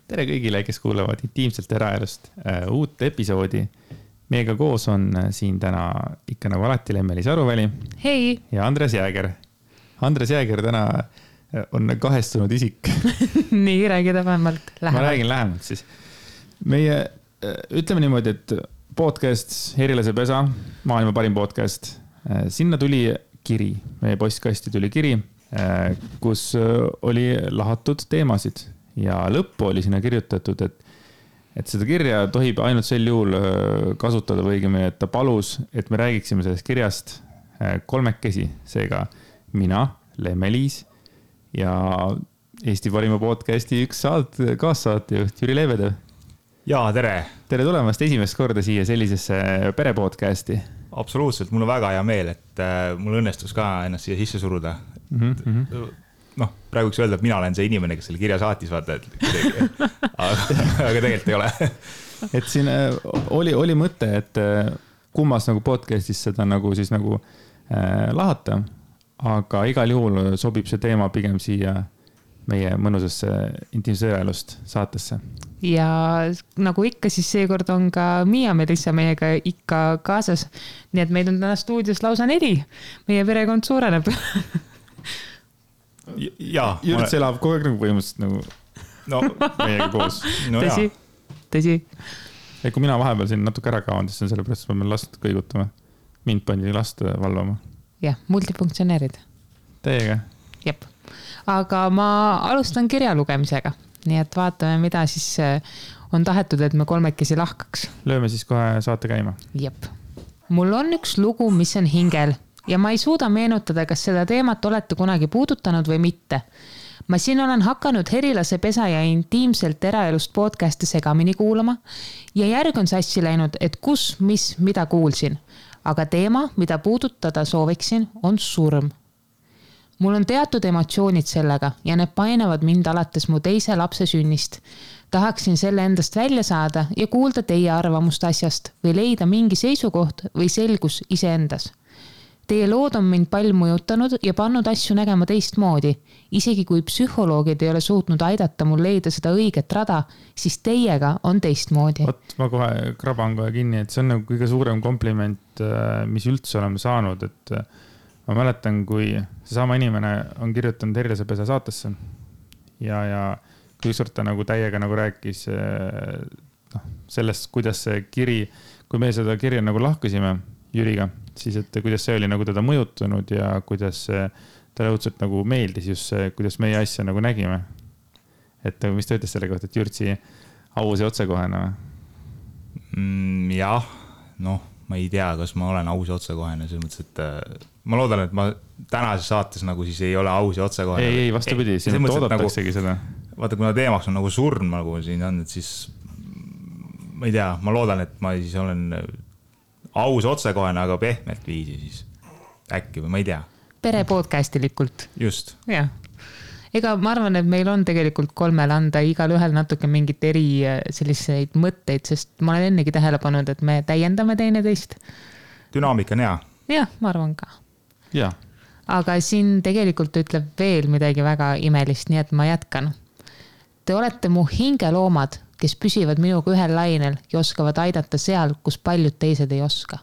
Tere kõigile, kes kuulevad intiimselt eraelust uut episoodi. Meiega koos on siin täna ikka nagu alati Lemmelis Aruväli. Hei! Ja Andres Jääger. Andres Jääger täna on kahestunud isik. Nii, räägida vähemalt lähemalt. Ma räägin lähemalt siis. Meie, ütleme niimoodi, et podcast Herilase pesa, maailma parim podcast. Sinna tuli kiri, meie postkasti tuli kiri, kus oli lahatud teemasid. Ja lõppu oli sinna kirjutatud, et seda kirja tohib ainult sel juhul kasutada või õigemini, et ta palus, et me räägiksime sellest kirjast kolmekesi. Seega mina, Lemmelis ja Eesti parima podcasti üks kaassaatejuht Jüri Leevedev. Jaa, tere! Tere tulemast esimest korda siia sellisesse perepodcasti. Absoluutselt, mul on väga hea meel, et mul õnnestus ka ennast siia sisse suruda. Praegu võiks öelda, et mina olen see inimene, kes selle kirja saatis, vaata, aga tegelikult ei ole. Et siin oli mõte, et kummas nagu podcastis seda nagu siis nagu lahata, aga igal juhul sobib see teema pigem siia meie mõnusasse intiimse eraelust saatesse. Ja nagu ikka, siis seekord on ka Miia Melissa meiega ikka kaasas. Nii et meil on täna stuudios lausa 4. Meie perekond suureneb. Jürts elab kogu aeg nagu põhimõtteliselt nagu meiega koos. Tõsi. Ja kui mina vahepeal siin natuke ära kaon, siis on sellepärast, et ma pean last kõigutama. Mind pandi last valvama. Jah, multifunktsioneerid. Teiega. Jep. Aga ma alustan kirja lugemisega. Nii et vaatame, mida siis on tahetud, et me kolmekesi lahkaks. Lööme siis kohe saate käima. Jep. Mul on üks lugu, mis on hingel. Ja ma ei suuda meenutada, kas seda teemat olete kunagi puudutanud või mitte. Ma siin olen hakanud Herilase pesa ja intiimselt eraelust podcasti segamini kuulama ja järg on sassi läinud, et kus, mis, mida kuulsin. Aga teema, mida puudutada sooviksin, on surm. Mul on teatud emotsioonid sellega ja need painavad mind alates mu teise lapse sünnist. Tahaksin selle endast välja saada ja kuulda teie arvamust asjast või leida mingi seisukoht või selgus iseendas. Teie lood on mind palju mõjutanud ja pannud asju nägema teistmoodi. Isegi kui psühholoogid ei ole suutnud aidata mul leida seda õiget rada, siis teiega on teistmoodi. Ma kohe kraban kohe kinni, et see on nagu kõige suurem kompliment, mis üldse oleme saanud. Et ma mäletan, kui seesama inimene on kirjutanud Herilase pesa saatesse ja kui ükskord ta nagu täiega nagu rääkis sellest, kuidas see kiri, kui me seda kirja nagu lahkusime Jüriga, siis et kuidas see oli nagu teda mõjutunud ja kuidas talle õudselt nagu meeldis just see, kuidas meie asja nagu nägime. Et mis ta ütles selle kohta, et Jürtsi aus ja otsekohene? Jah, ma ei tea, kas ma olen aus ja otsekohene. Selles mõttes, et ma loodan, et ma tänases saates nagu siis ei ole aus ja otsekohene. Ei, vastupidi, siin toodataksegi seda. Vaata, kuna teemaks on nagu surm, nagu siin on, et siis ma ei tea, ma loodan, et ma siis olen aus otsekohene, aga pehmelt viisi siis äkki või ma ei tea. Perepodcastilikult. Just. Jah. Ega ma arvan, et meil on tegelikult 3 anda igal ühel natuke mingit eri selliseid mõtteid, sest ma olen ennegi tähele pannud, et me täiendame teineteist. Dünaamika on hea. Jah, ma arvan ka. Ja. Aga siin tegelikult ütleb veel midagi väga imelist, nii et ma jätkan. Te olete mu hingeloomad, kes püsivad minuga ühel lainel ja oskavad aidata seal, kus paljud teised ei oska.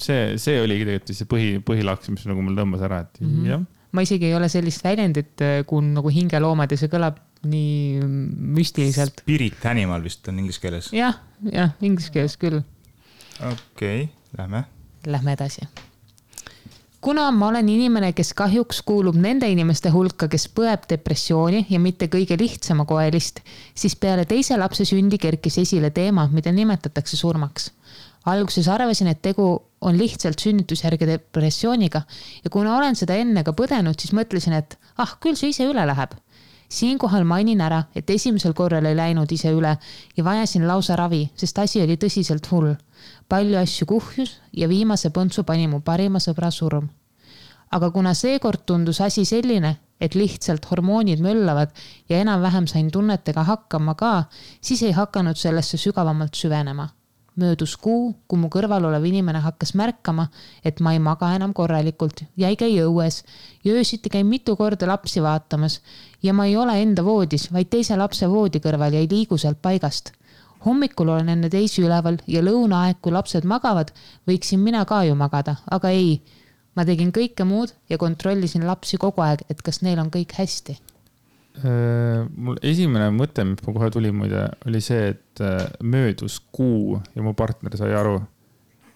See oligi tegelikult see põhilaks, mis nagu mul tõmbas ära. Et jah. Ma isegi ei ole sellist väljendit, kui nagu hingeloomad ja see kõlab nii müstiliselt. Spirit animal vist on inglise keeles. Jah, inglise keeles küll. Okei, lähme. Lähme edasi. Kuna ma olen inimene, kes kahjuks kuulub nende inimeste hulka, kes põeb depressiooni ja mitte kõige lihtsama koelist, siis peale teise lapse sündi kerkis esile teema, mida nimetatakse surmaks. Alguses arvasin, et tegu on lihtsalt sünnitusjärge depressiooniga ja kuna olen seda enne ka põdenud, siis mõtlesin, et küll see ise üle läheb. Siinkohal mainin ära, et esimesel korral ei läinud ise üle ja vajasin lausa ravi, sest asi oli tõsiselt hull. Palju asju kuhjus ja viimase põntsu pani mu parima sõbra surm. Aga kuna seekord tundus asi selline, et lihtsalt hormoonid möllavad ja enam-vähem sain tunnetega hakkama ka, siis ei hakanud sellesse sügavamalt süvenema. Möödus kuu, kui mu kõrval olev inimene hakkas märkama, et ma ei maga enam korralikult ja ei käi õues ja öösiti käin mitu korda lapsi vaatamas ja ma ei ole enda voodis, vaid teise lapse voodi kõrval ja ei liigu sealt paigast. Hommikul olen enne teisi üleval ja lõunaaeg, kui lapsed magavad, võiksin mina ka ju magada, aga ei. Ma tegin kõike muud ja kontrollisin lapsi kogu aeg, et kas neil on kõik hästi. Mul esimene mõte, mis ma kohe tuli muide, oli see, et möödus kuu ja mu partner sai aru.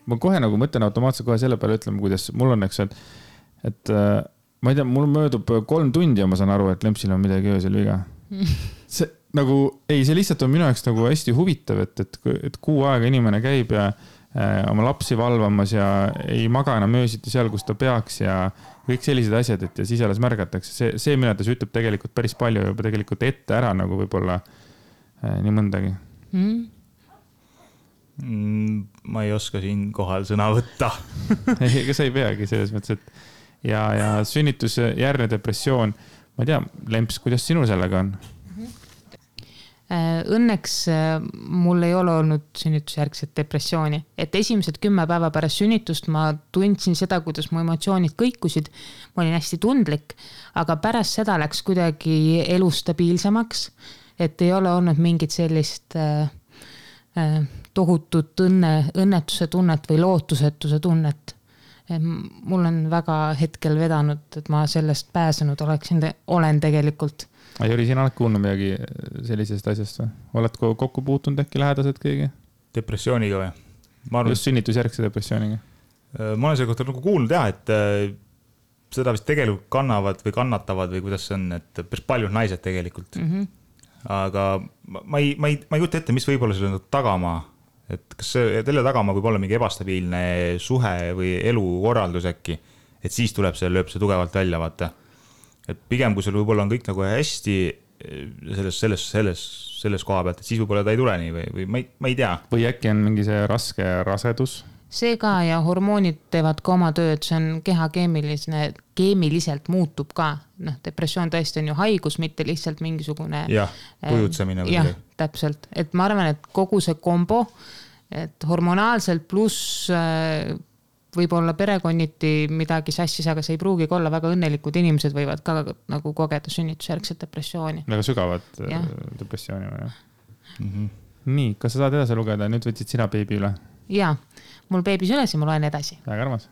Ma kohe nagu mõtlen automaatselt kohe selle peale ütlema, kuidas mul on, eks, et ma ei tea, mul möödub 3 tundi ja ma saan aru, et lempsil on midagi öösel viga. See nagu, see lihtsalt on minu jaoks nagu hästi huvitav, et kuu aega inimene käib ja oma lapsi valvamas ja ei maga enam öösiti seal, kus ta peaks ja kõik sellised asjad, et ja siis alles märgatakse. See mille ta ütleb tegelikult päris palju juba tegelikult ette ära nagu võib-olla nii mõndagi. Ma ei oska siin kohal sõna võtta. Ega sa ei peagi selles mõttes, et ja sünnitusjärgne depressioon, ma ei tea, Lemps, kuidas sinul sellega on? Õnneks mul ei ole olnud sünnitusjärgset depressiooni, et esimesed 10 päeva pärast sünnitust ma tundsin seda, kuidas mu emotsioonid kõikusid. Ma olin hästi tundlik, aga pärast seda läks kuidagi elu stabiilsemaks, et ei ole olnud mingit sellist tohutut õnnetuse tunnet või lootusetuse tunnet. Mul on väga hetkel vedanud, et ma sellest pääsenud olen tegelikult. Jüri, sina oled kuulnud midagi sellisest asjast või? Oled kokku puutunud äkki lähedased kõigi? Depressiooniga või? Just sünnitusjärgse depressiooniga. Ma olen selle kohta nagu kuulnud et seda vist tegelikult kannavad või kannatavad või kuidas see on, et päris paljud naised tegelikult. Aga ma ei kujuta ette, mis võib olla selle tagamaa, et kas selle tagamaa võib olla mingi ebastabiilne suhe või elukorraldus äkki, et siis tuleb lööb see tugevalt välja, vaata. Et pigem, kui sul võib-olla on kõik nagu hästi selles koha pealt, et siis võib-olla ta ei tule nii või ma ei tea. Või äkki on mingi see raske rasedus? See ka ja hormoonid teevad ka oma tööd, see on keha keemiliselt muutub ka. Depressioon tõesti on ju haigus, mitte lihtsalt mingisugune... Jah, kujutsemine. Jah, täpselt. Et ma arvan, et kogu see kombo, et hormonaalselt pluss... võib-olla perekonniti midagi sassis, aga see ei pruugi olla väga õnnelikud inimesed võivad ka nagu kogeda sünnitusjärgset depressiooni. Väga sügavat depressiooni või? Nii, kas sa saad edasi lugeda? Nüüd võtsid sina beebi üle? Jaa, mul beebis üles ja ma loen edasi. Väga armas.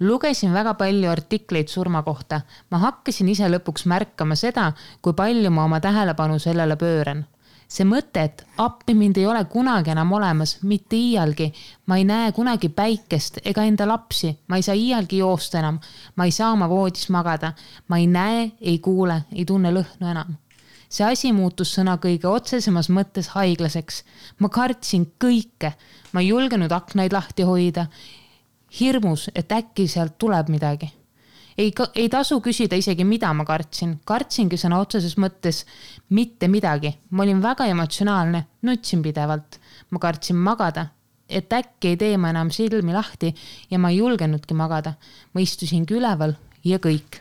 Lugesin väga palju artikleid surma kohta. Ma hakkasin ise lõpuks märkama seda, kui palju ma oma tähelepanu sellele pööran. See mõte, et appi mind ei ole kunagi enam olemas, mitte iialgi. Ma ei näe kunagi päikest ega enda lapsi. Ma ei saa iialgi joosta enam. Ma ei saa oma voodis magada. Ma ei näe, ei kuule, ei tunne lõhnu enam. See asi muutus sõna kõige otsesemas mõttes haiglaseks. Ma kartsin kõike. Ma ei julgenud aknaid lahti hoida. Hirmus, et äkki sealt tuleb midagi. Ei tasu küsida isegi, mida ma kartsin. Kartsingi sõna otseses mõttes mitte midagi. Ma olin väga emotsionaalne, nutsin pidevalt. Ma kartsin magada, et äkki ei tee ma enam silmi lahti ja ma ei julgenudki magada. Ma istusingi üleval ja kõik.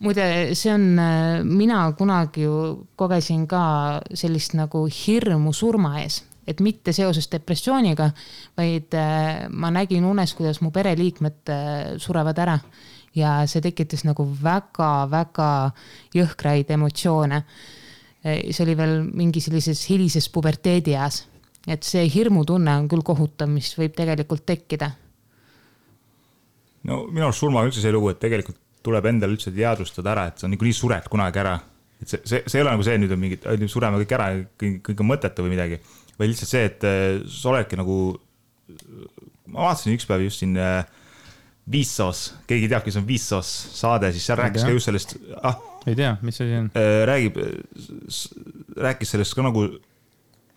Muide, see on, mina kunagi ju kogesin ka sellist nagu hirmu surma ees. Et mitte seoses depressiooniga, vaid ma nägin unes, kuidas mu pereliikmed surevad ära ja see tekitas nagu väga jõhkraid emotsioone. See oli veel mingi sellises hilises puberteedi eas, et see hirmutunne on küll kohutav, mis võib tegelikult tekkida. No minu arust surma üldse see lugu, et tegelikult tuleb endale üldse teadvustada ära, et see on nii sured kunagi ära. Et see ei ole nagu see, nüüd on mingid, sureme kõik ära, kõik on mõttetu või midagi. Või lihtsalt see, et sa oledki nagu, ma vaatasin üks päev just siin Viissos, keegi teab, kes on Viissos saade, siis seal rääkis ka just sellest, ei tea, mis see on? Rääkis sellest ka nagu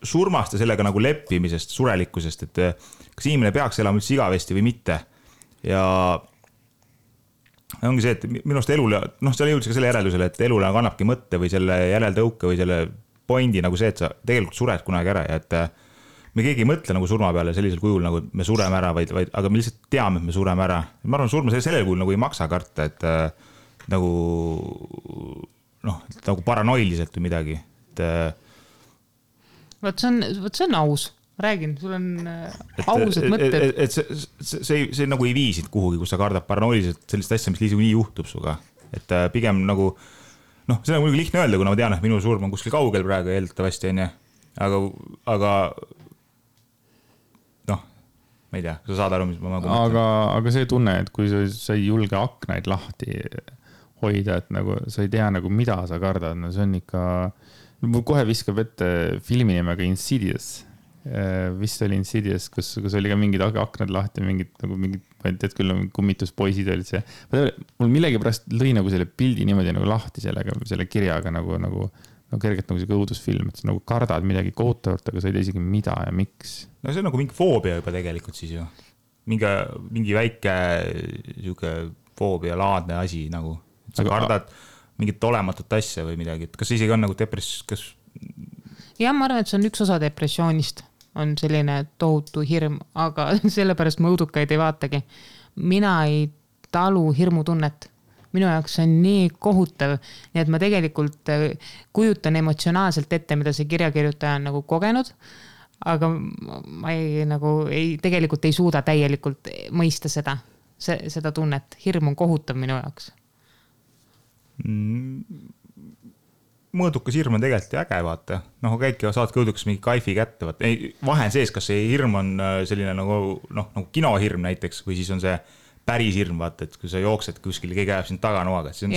surmast ja sellega nagu leppimisest, surelikkusest, et kas inimene peaks elama üldse igavesti või mitte. Ja ongi see, et minust elule, seal jõudis ka selle järeldusele, et elule kannabki mõtte või selle järeldõuke või selle pointi nagu see, et sa tegelikult sured kunagi ära ja et me keegi ei mõtle nagu surma peale sellisel kujul, nagu me sureme ära, aga me lihtsalt teame, et me sureme ära. Ma arvan, surma sellel kujul nagu ei maksa karta, et nagu, nagu paranoiliselt või midagi. Võt see on aus. räägin, sul on ausad mõtted. Et see nagu ei viisid kuhugi, kus sa kardad paranoiliselt sellist asja, mis nii juhtub suga. Et pigem nagu, see on muidugi lihtne öelda, kuna ma tean, et minu surm on kuskil kaugel praegu eeldatavasti, on ju. Aga ma ei tea, sa saad aru, mis ma mõtlen. Aga see tunne, et kui sa ei julge aknaid lahti hoida, et nagu sa ei tea nagu mida sa kardad, no see on ikka, mul kohe viskab ette filmi nimega Insidious. Vist oli Insidious, kus oli ka mingid aknad lahti, mingid, ma ei tead küll, kummituspoisid olid see. Mul millegi pärast lõi nagu selle pildi niimoodi nagu lahti selle kirjaga nagu kergelt nagu see õudusfilm, et sa nagu kardad midagi kohutavat, aga sa ei tea isegi mida ja miks. No see on nagu mingi foobia juba tegelikult siis ju. Mingi väike foobia laadne asi nagu. Sa kardad mingit olematut asja või midagi. Kas see isegi on nagu depress... Ja ma arvan, et see on üks osa depressioonist. On selline tohutu hirm, aga sellepärast ma õudukaid ei vaatagi. Mina ei talu hirmutunnet. Minu jaoks on nii kohutav, nii et ma tegelikult kujutan emotsionaalselt ette, mida see kirjakirjutaja on nagu kogenud, aga ma tegelikult ei suuda täielikult mõista seda tunnet. Hirm on kohutav minu jaoks. Mõõdukas hirm on tegelikult äge, vaata. Käidki saadki õudukas mingi kaifi kätte. Vahe on sees, kas see hirm on selline nagu kinohirm näiteks või siis on see päris hirm, vaata, et kui sa jooksed kuskil, keegi ajab sind taganoaga. See on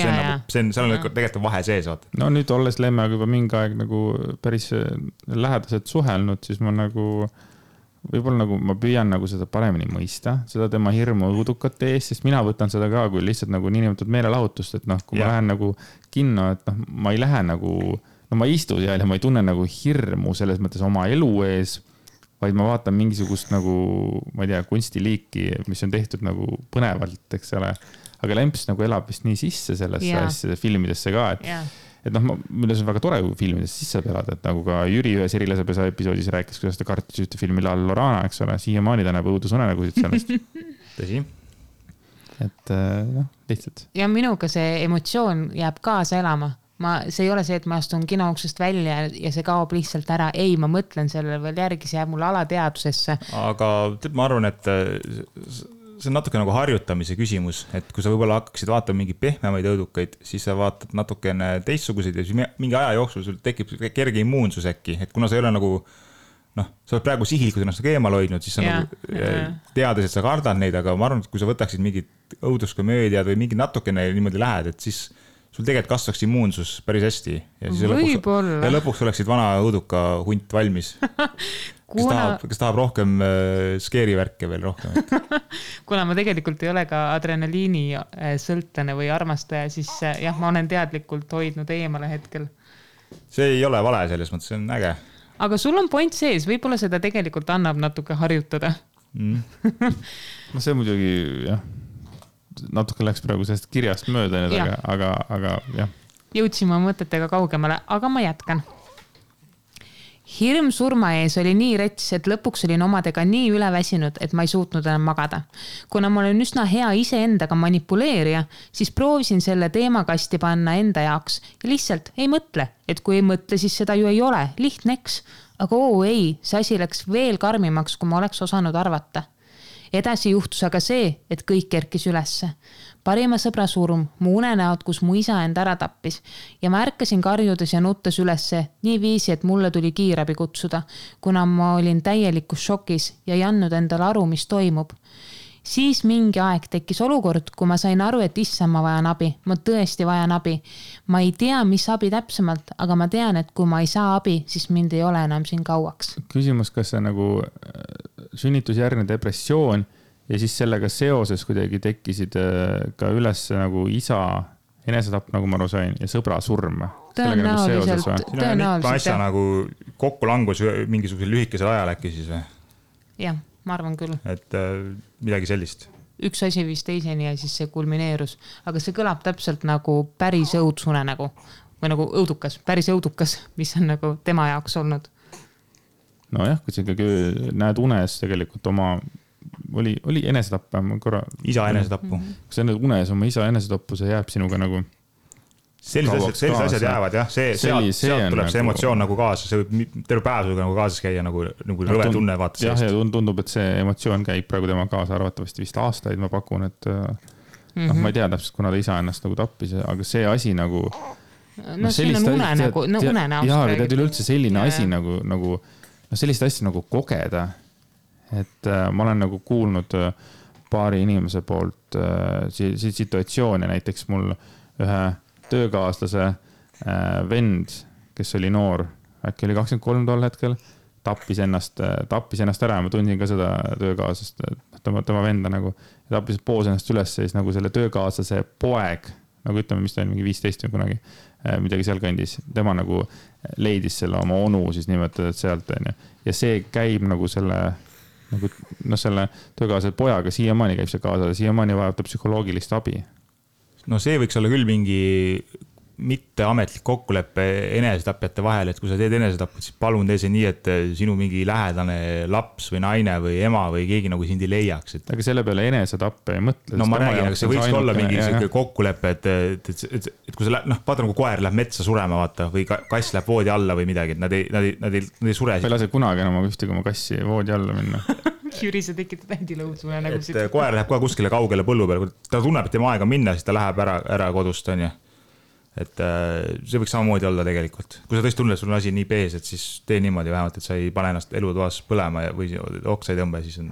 tegelikult vahe sees, vaata. No nüüd olles Lemmeaga juba mingi aeg nagu päris lähedaselt suhelnud, siis ma nagu võib-olla nagu ma püüan nagu seda paremini mõista, seda tema hirmu õudukate ees, sest mina võtan seda ka kui lihtsalt nagu niinimetatud meelelahutust, et kui ma lähen nagu kinno, et ma ei lähe nagu, ma ei istu seal ja ma ei tunne nagu hirmu selles mõttes oma elu ees, vaid ma vaatan mingisugust nagu, ma ei tea, kunstiliiki, mis on tehtud nagu põnevalt, eks ole. Aga Lemps nagu elab vist nii sisse sellesse asjade filmidesse ka, et milles on väga tore filmides sisse pelada, et nagu ka Jüri ühes Erilasepesa episoodis rääkis, kuidas ta kartis ühte filmi La Lorana, eks ole, siiamaani ta näeb õudusunenägusid sellest. Tõsi. Et lihtsalt. Ja minuga see emotsioon jääb kaasa elama. See ei ole see, et ma astun kinouksest välja ja see kaob lihtsalt ära. Ei, ma mõtlen sellele veel järgi, see jääb mulle alateadusesse. Aga ma arvan, et see on natuke nagu harjutamise küsimus, et kui sa võib-olla hakkaksid vaatama mingi pehmemaid õudukaid, siis sa vaatad natukene teistsuguseid ja siis mingi aja jooksul sul tekib kerge immuunsus äkki, et kuna sa ei ole nagu, sa oled praegu sihilikud ennast eemal hoidnud, siis sa nagu teades, et sa kardad neid, aga ma arvan, et kui sa võtaksid mingid õuduskomöödiad või mingi natukene niimoodi lähed, et siis sul tegelikult kasvaks immuunsus päris hästi ja siis lõpuks oleksid vana õuduka hunt valmis. Kes tahab rohkem skeeri värke veel rohkem. Kuna ma tegelikult ei ole ka adrenaliini sõltlane või armastaja, siis ma olen teadlikult hoidnud eemale hetkel. See ei ole vale selles mõttes, see on äge. Aga sul on point sees, võib-olla seda tegelikult annab natuke harjutada. See muidugi, natuke läks praegu sellest kirjast mööda, aga jah. Jõudsime mõtetega kaugemale, aga ma jätkan. Hirm surma ees oli nii rets, et lõpuks olin omadega nii üleväsinud, et ma ei suutnud enam magada. Kuna ma olen üsna hea iseendaga manipuleerija, siis proovisin selle teemakasti panna enda jaoks ja lihtsalt ei mõtle, et kui ei mõtle, siis seda ju ei ole, lihtneks. Aga ei, see asi läks veel karmimaks, kui ma oleks osanud arvata. Edasi juhtus aga see, et kõik kerkis ülesse. Parima sõbra surm, mu unenäod, kus mu isa end ära tappis ja ma ärkasin karjudes ja nuttes ülesse nii viisi, et mulle tuli kiirabi kutsuda, kuna ma olin täielikus šokis ja ei andnud endale aru, mis toimub. Siis mingi aeg tekkis olukord, kui ma sain aru, et issa ma vajan abi, ma tõesti vajan abi. Ma ei tea, mis abi täpsemalt, aga ma tean, et kui ma ei saa abi, siis mind ei ole enam siin kauaks. Küsimus, kas see nagu sünnitusjärgne depressioon ja siis sellega seoses kuidagi tekkisid ka üles nagu isa enesetapp, nagu ma aru sain, ja sõbra surm. Tõenäoliselt. Mitme asja nagu kokku langus mingisugusel lühikesel ajal äkki siis või? Jah, ma arvan küll. Et midagi sellist. Üks asi viis teiseni ja siis see kulmineerus. Aga see kõlab täpselt nagu päris õudsune nagu, või nagu õudukas, päris õudukas, mis on nagu tema jaoks olnud. Nojah, kui sa ikkagi näed unes tegelikult oma oli enesetapp korra. Isa enesetapu. Kui sa näed unes oma isa enesetapu, see jääb sinuga nagu sellised asjad jäävad jah, sealt tuleb see emotsioon nagu kaasa, see võib terve päev nagu kaasas käia nagu rõve tunne vaata jah, ja tundub, et see emotsioon käib praegu tema kaasa arvatavasti vist aastaid, ma pakun, et ma ei tea täpselt, kuna ta isa ennast nagu tappis, aga see asi nagu siin on unenäost jaa, aga tead üleüldse selline asi nagu sellist asja nagu kogeda, et ma olen nagu kuulnud paari inimese poolt situatsioone, näiteks mul ühe töökaaslase vend, kes oli noor, äkki oli 23 tol hetkel, tappis ennast ära ja ma tundsin ka seda töökaaslast, tema venda nagu, ja tappis poos ennast üles siis nagu selle töökaaslase poeg, nagu ütleme, mis ta oli mingi 15 või kunagi, midagi seal kandis, tema nagu leidis selle oma onu siis nimetad sealt, ja see käib nagu selle töökaaslase pojaga siiamaani käib see kaasa, siiamaani vajab ta psühholoogilist abi. No see võiks olla küll mingi mitteametlik kokkulepe enesetapjate vahel, et kui sa teed enesetapjat, siis palun tee see nii, et sinu mingi lähedane laps või naine või ema või keegi nagu sind ei leiaks. Aga selle peale enesetappe ei mõtle. No ma räägin, aga see võiks olla mingi kokkulepe, et kui sa vaata nagu koer läheb metsa surema vaata või kass läheb voodi alla või midagi, et nad ei sure. Ma ei lase kunagi enam ühtegi oma kassi voodi alla minna. Jüri, sa tekitad händilõudsume nagu siit. Et koer läheb kohe kuskile kaugele põllu peale, kui ta tunneb, et tema aega minna, siis ta läheb ära kodust, on ju. Et see võiks samamoodi olla tegelikult. Kui sa tõesti tunned, et sul on asi nii pees, et siis tee niimoodi vähemalt, et sa ei pane ennast elutoas põlema või oksa ei tõmba, siis on,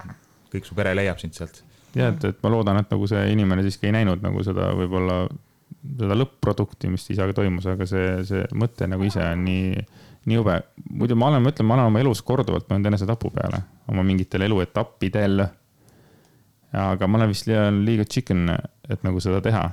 kõik su pere leiab sind sealt. Ja, et ma loodan, et nagu see inimene siiski ei näinud nagu seda võib-olla seda lõpp-produkti, mis isaga toimus, aga see mõte nagu ise on nii jube. Muidu ma olen oma elus korduvalt mõelnud enese tapu peale, oma mingitel eluetappidel. Aga ma olen vist liiga chicken, et nagu seda teha.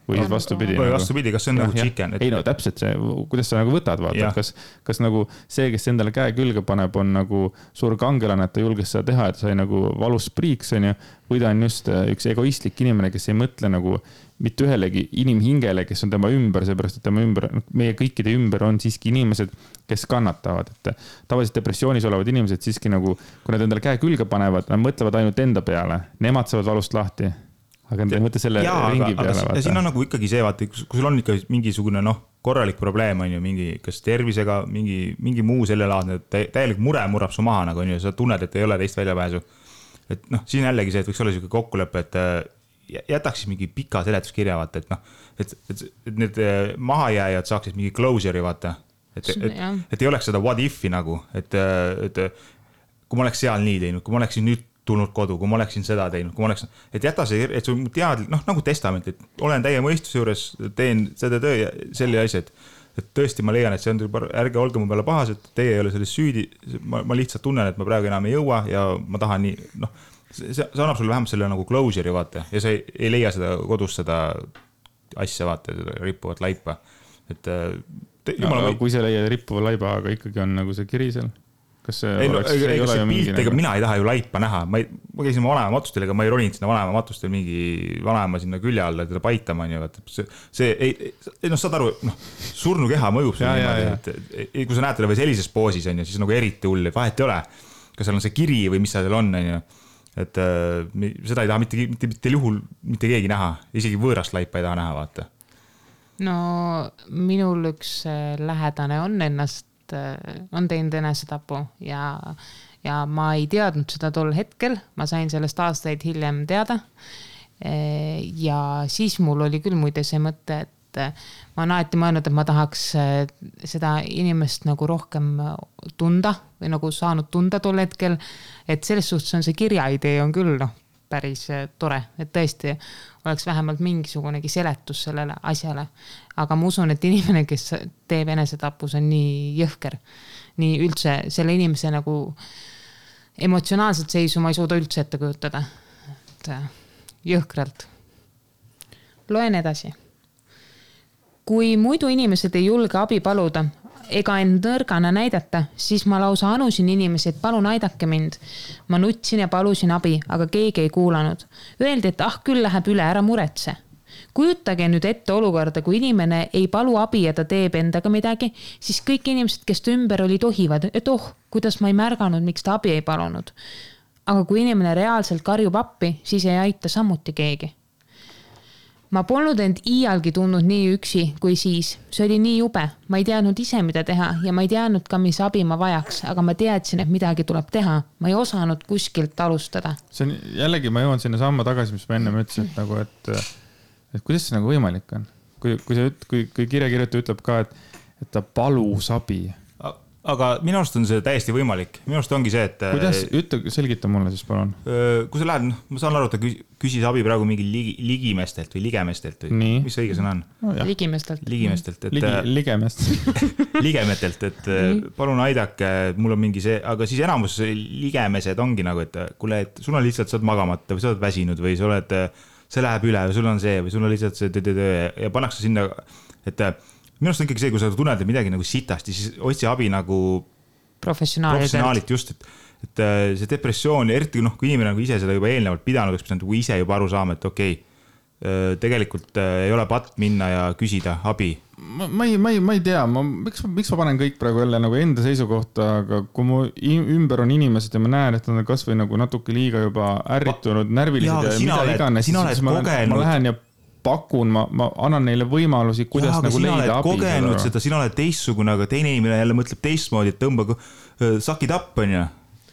Või siis vastupidi, kas see on nagu chicken? Ei no täpselt see, kuidas sa nagu võtad, vaata, kas nagu see, kes endale käe külge paneb, on nagu suur kangelane, et ta julges seda teha, et sai nagu valus priiks, on ju, või ta on just üks egoistlik inimene, kes ei mõtle nagu mitte ühelegi inimhingele, kes on tema ümber, seepärast, et tema ümber, meie kõikide ümber on siiski inimesed, kes kannatavad, et tavaliselt depressioonis olevad inimesed siiski nagu, kui nad endale käe külge panevad, nad mõtlevad ainult enda peale, nemad saavad valust lahti. Aga nad ei mõtle selle ringi peale. Ja siin on nagu ikkagi see, vaata, kui sul on ikka mingisugune korralik probleem, on ju, mingi kas tervisega, mingi muu selle laadne, täielik mure murrab su maha, nagu on ju, sa tunned, et ei ole teist väljapääsu. Et siin jällegi see, et võiks olla selline kokkulepe, et jätaks mingi pika seletuskirja, vaata, et need mahajääjad saaksid mingi closure'i, vaata. Et ei oleks seda what if'i nagu, et kui ma oleks seal nii teinud, kui ma oleksin nüüd tulnud kodu, kui ma oleksin seda teinud, kui ma oleksin, et jäta see, et sul tead, nagu testament, et olen täie mõistuse juures, teen seda töö ja selle asja, et tõesti ma leian, et see on, ärge olge mu peale pahas, et teie ei ole selles süüdi, ma lihtsalt tunnen, et ma praegu enam ei jõua ja ma tahan nii, see annab sulle vähemalt selle nagu closure'i, vaata, ja sa ei leia seda kodus seda asja, vaata, seda rippuvat laipa, et kui sa leia rippuva laiba, aga ikkagi on nagu see kiri seal. Kas see mina ei taha ju laipa näha, ma käisin vanema matustel, ega ma ei roninud sinna vanema matustel mingi vanema sinna külje alla, teda paitama, saad aru, surnu keha mõjub sulle niimoodi, et kui sa näed teda või sellises poosis, siis nagu eriti hull, vahet ei ole, kas seal on see kiri või mis seal on, et seda ei taha mitte juhul mitte keegi näha, isegi võõrast laipa ei taha näha, vaata. No minul üks lähedane on teinud enesetapu ja ma ei teadnud seda tol hetkel, ma sain sellest aastaid hiljem teada ja siis mul oli küll muide see mõte, et ma olen alati mõelnud, et ma tahaks seda inimest nagu rohkem tunda või nagu saanud tunda tol hetkel, et selles suhtes on see kirjaidee on küll päris tore, et tõesti oleks vähemalt mingisugunegi seletus sellele asjale. Aga ma usun, et inimene, kes teeb enesetapus, on nii jõhker. Nii üldse selle inimese nagu emotsionaalselt seisu ma ei suuda üldse ette kujutada. Jõhkralt. Loen edasi. Kui muidu inimesed ei julge abi paluda, ega end nõrgana näidata, siis ma lausa anusin inimesi, et palun aidake mind. Ma nutsin ja palusin abi, aga keegi ei kuulanud. Öeldi, et küll läheb üle, ära muretse. Kujutage nüüd ette olukorda, kui inimene ei palu abi ja ta teeb endaga midagi, siis kõik inimesed, kes ta ümber oli, tohivad, et kuidas ma ei märganud, miks ta abi ei palunud. Aga kui inimene reaalselt karjub appi, siis ei aita samuti keegi. ma polnud end iialgi tundnud nii üksi kui siis. See oli nii jube. Ma ei teadnud ise, mida teha ja ma ei teadnud ka, mis abi ma vajaks, aga ma teadsin, et midagi tuleb teha. Ma ei osanud kuskilt alustada. See on jällegi, ma jõuan sinna samma tagasi, mis ma enne ütlesin, et nagu, et kuidas see nagu võimalik on? Kui kirjakirjutaja ütleb ka, et ta palus abi. Aga minu arust on see täiesti võimalik. Minu arust ongi see, et... Kuidas? Selgita mulle siis, palun. Kui sa lähed, ma saan aru, et ta küsis abi praegu mingi ligimestelt või ligemestelt või mis õige sõna on? No, ligemestelt. Ligemestelt. Ligemetelt, et palun aidake, mul on mingi see, aga siis enamus ligemesed ongi nagu, et kuule, et sul on lihtsalt, sa oled magamata või sa oled väsinud või see läheb üle või sul on see või sul on lihtsalt see ja pannakse sinna, et minu arust on ikkagi see, kui sa tunned midagi nagu sitasti, siis otsi abi nagu professionaalilt just, et see depressioon, eriti kui inimene nagu ise seda juba eelnevalt pidanud, eks pidanud ise juba aru saama, et okei, tegelikult ei ole patt minna ja küsida abi. Ma ei tea, miks ma panen kõik praegu jälle nagu enda seisukohta, aga kui mu ümber on inimesed ja ma näen, et nad on kas või nagu natuke liiga juba ärritunud, närvilised ja mida iganes, siis ma lähen ja pakun, ma annan neile võimalusi, kuidas nagu leida abi. Kogenud seda, sina oled teistsugune, aga teine inimene jälle mõtleb teistmoodi, et tõmba, suck it up on ju.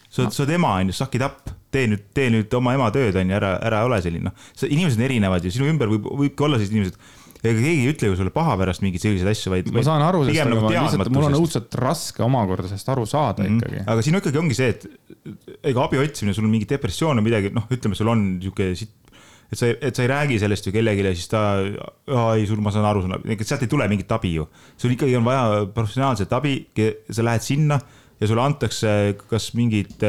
Sa oled ema on ju, suck it up. Tee nüüd oma ema tööd on ju, ära ole selline. Inimesed on erinevad ja sinu ümber võibki olla sellised inimesed. Ega keegi ei ütle ju sulle paha pärast mingeid selliseid asju, vaid ma saan aru, sest lihtsalt mul on õudselt raske omakorda sest aru saada ikkagi. Aga siin ikkagi ongi see, et ega abi otsimine, sul on mingi depressioon või midagi, ütleme, sul on niisugune et sa ei räägi sellest ju kellegile, siis ta, ma saan aru, sealt ei tule mingit abi ju. Sul ikkagi on vaja professionaalset abi, sa lähed sinna ja sulle antakse kas mingit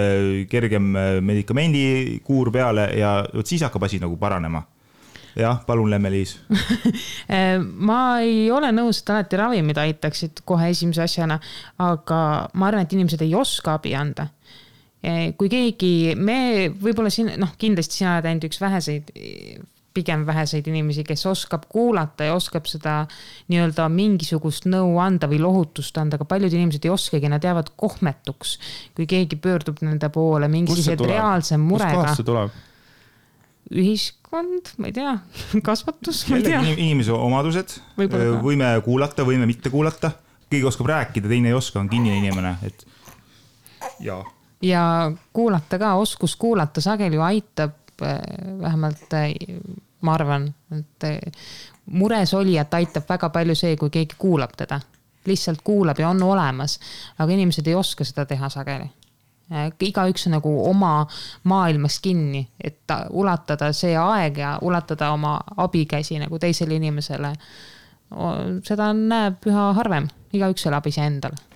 kergem medikamendikuur peale ja siis hakkab asi nagu paranema. Jah, palun Lemme-Liis. Ma ei ole nõus, et alati ravimid aitaksid kohe esimese asjana, aga ma arvan, et inimesed ei oska abi anda. Kui keegi, me võib-olla siin, kindlasti sina oled ainult üks pigem väheseid inimesi, kes oskab kuulata ja oskab seda nii-öelda mingisugust nõu anda või lohutust anda, aga paljud inimesed ei oskagi, nad jäävad kohmetuks, kui keegi pöördub nende poole mingisugused reaalse murega. Kust kohast see tuleb? Ühiskond, ma ei tea, kasvatus, ma ei tea. Inimese omadused, võime kuulata, võime mitte kuulata, keegi oskab rääkida, teine ei oska, on kinnine inimene, et jaa. Ja kuulata ka, oskus kuulata sageli ju aitab, vähemalt ma arvan, et mures olijat aitab väga palju see, kui keegi kuulab teda. Lihtsalt kuulab ja on olemas, aga inimesed ei oska seda teha sageli. Igaüks on nagu oma maailmas kinni, et ulatada see aeg ja ulatada oma abikäsi nagu teisele inimesele. Seda näeb üha harvem, igaüks elab ise endale.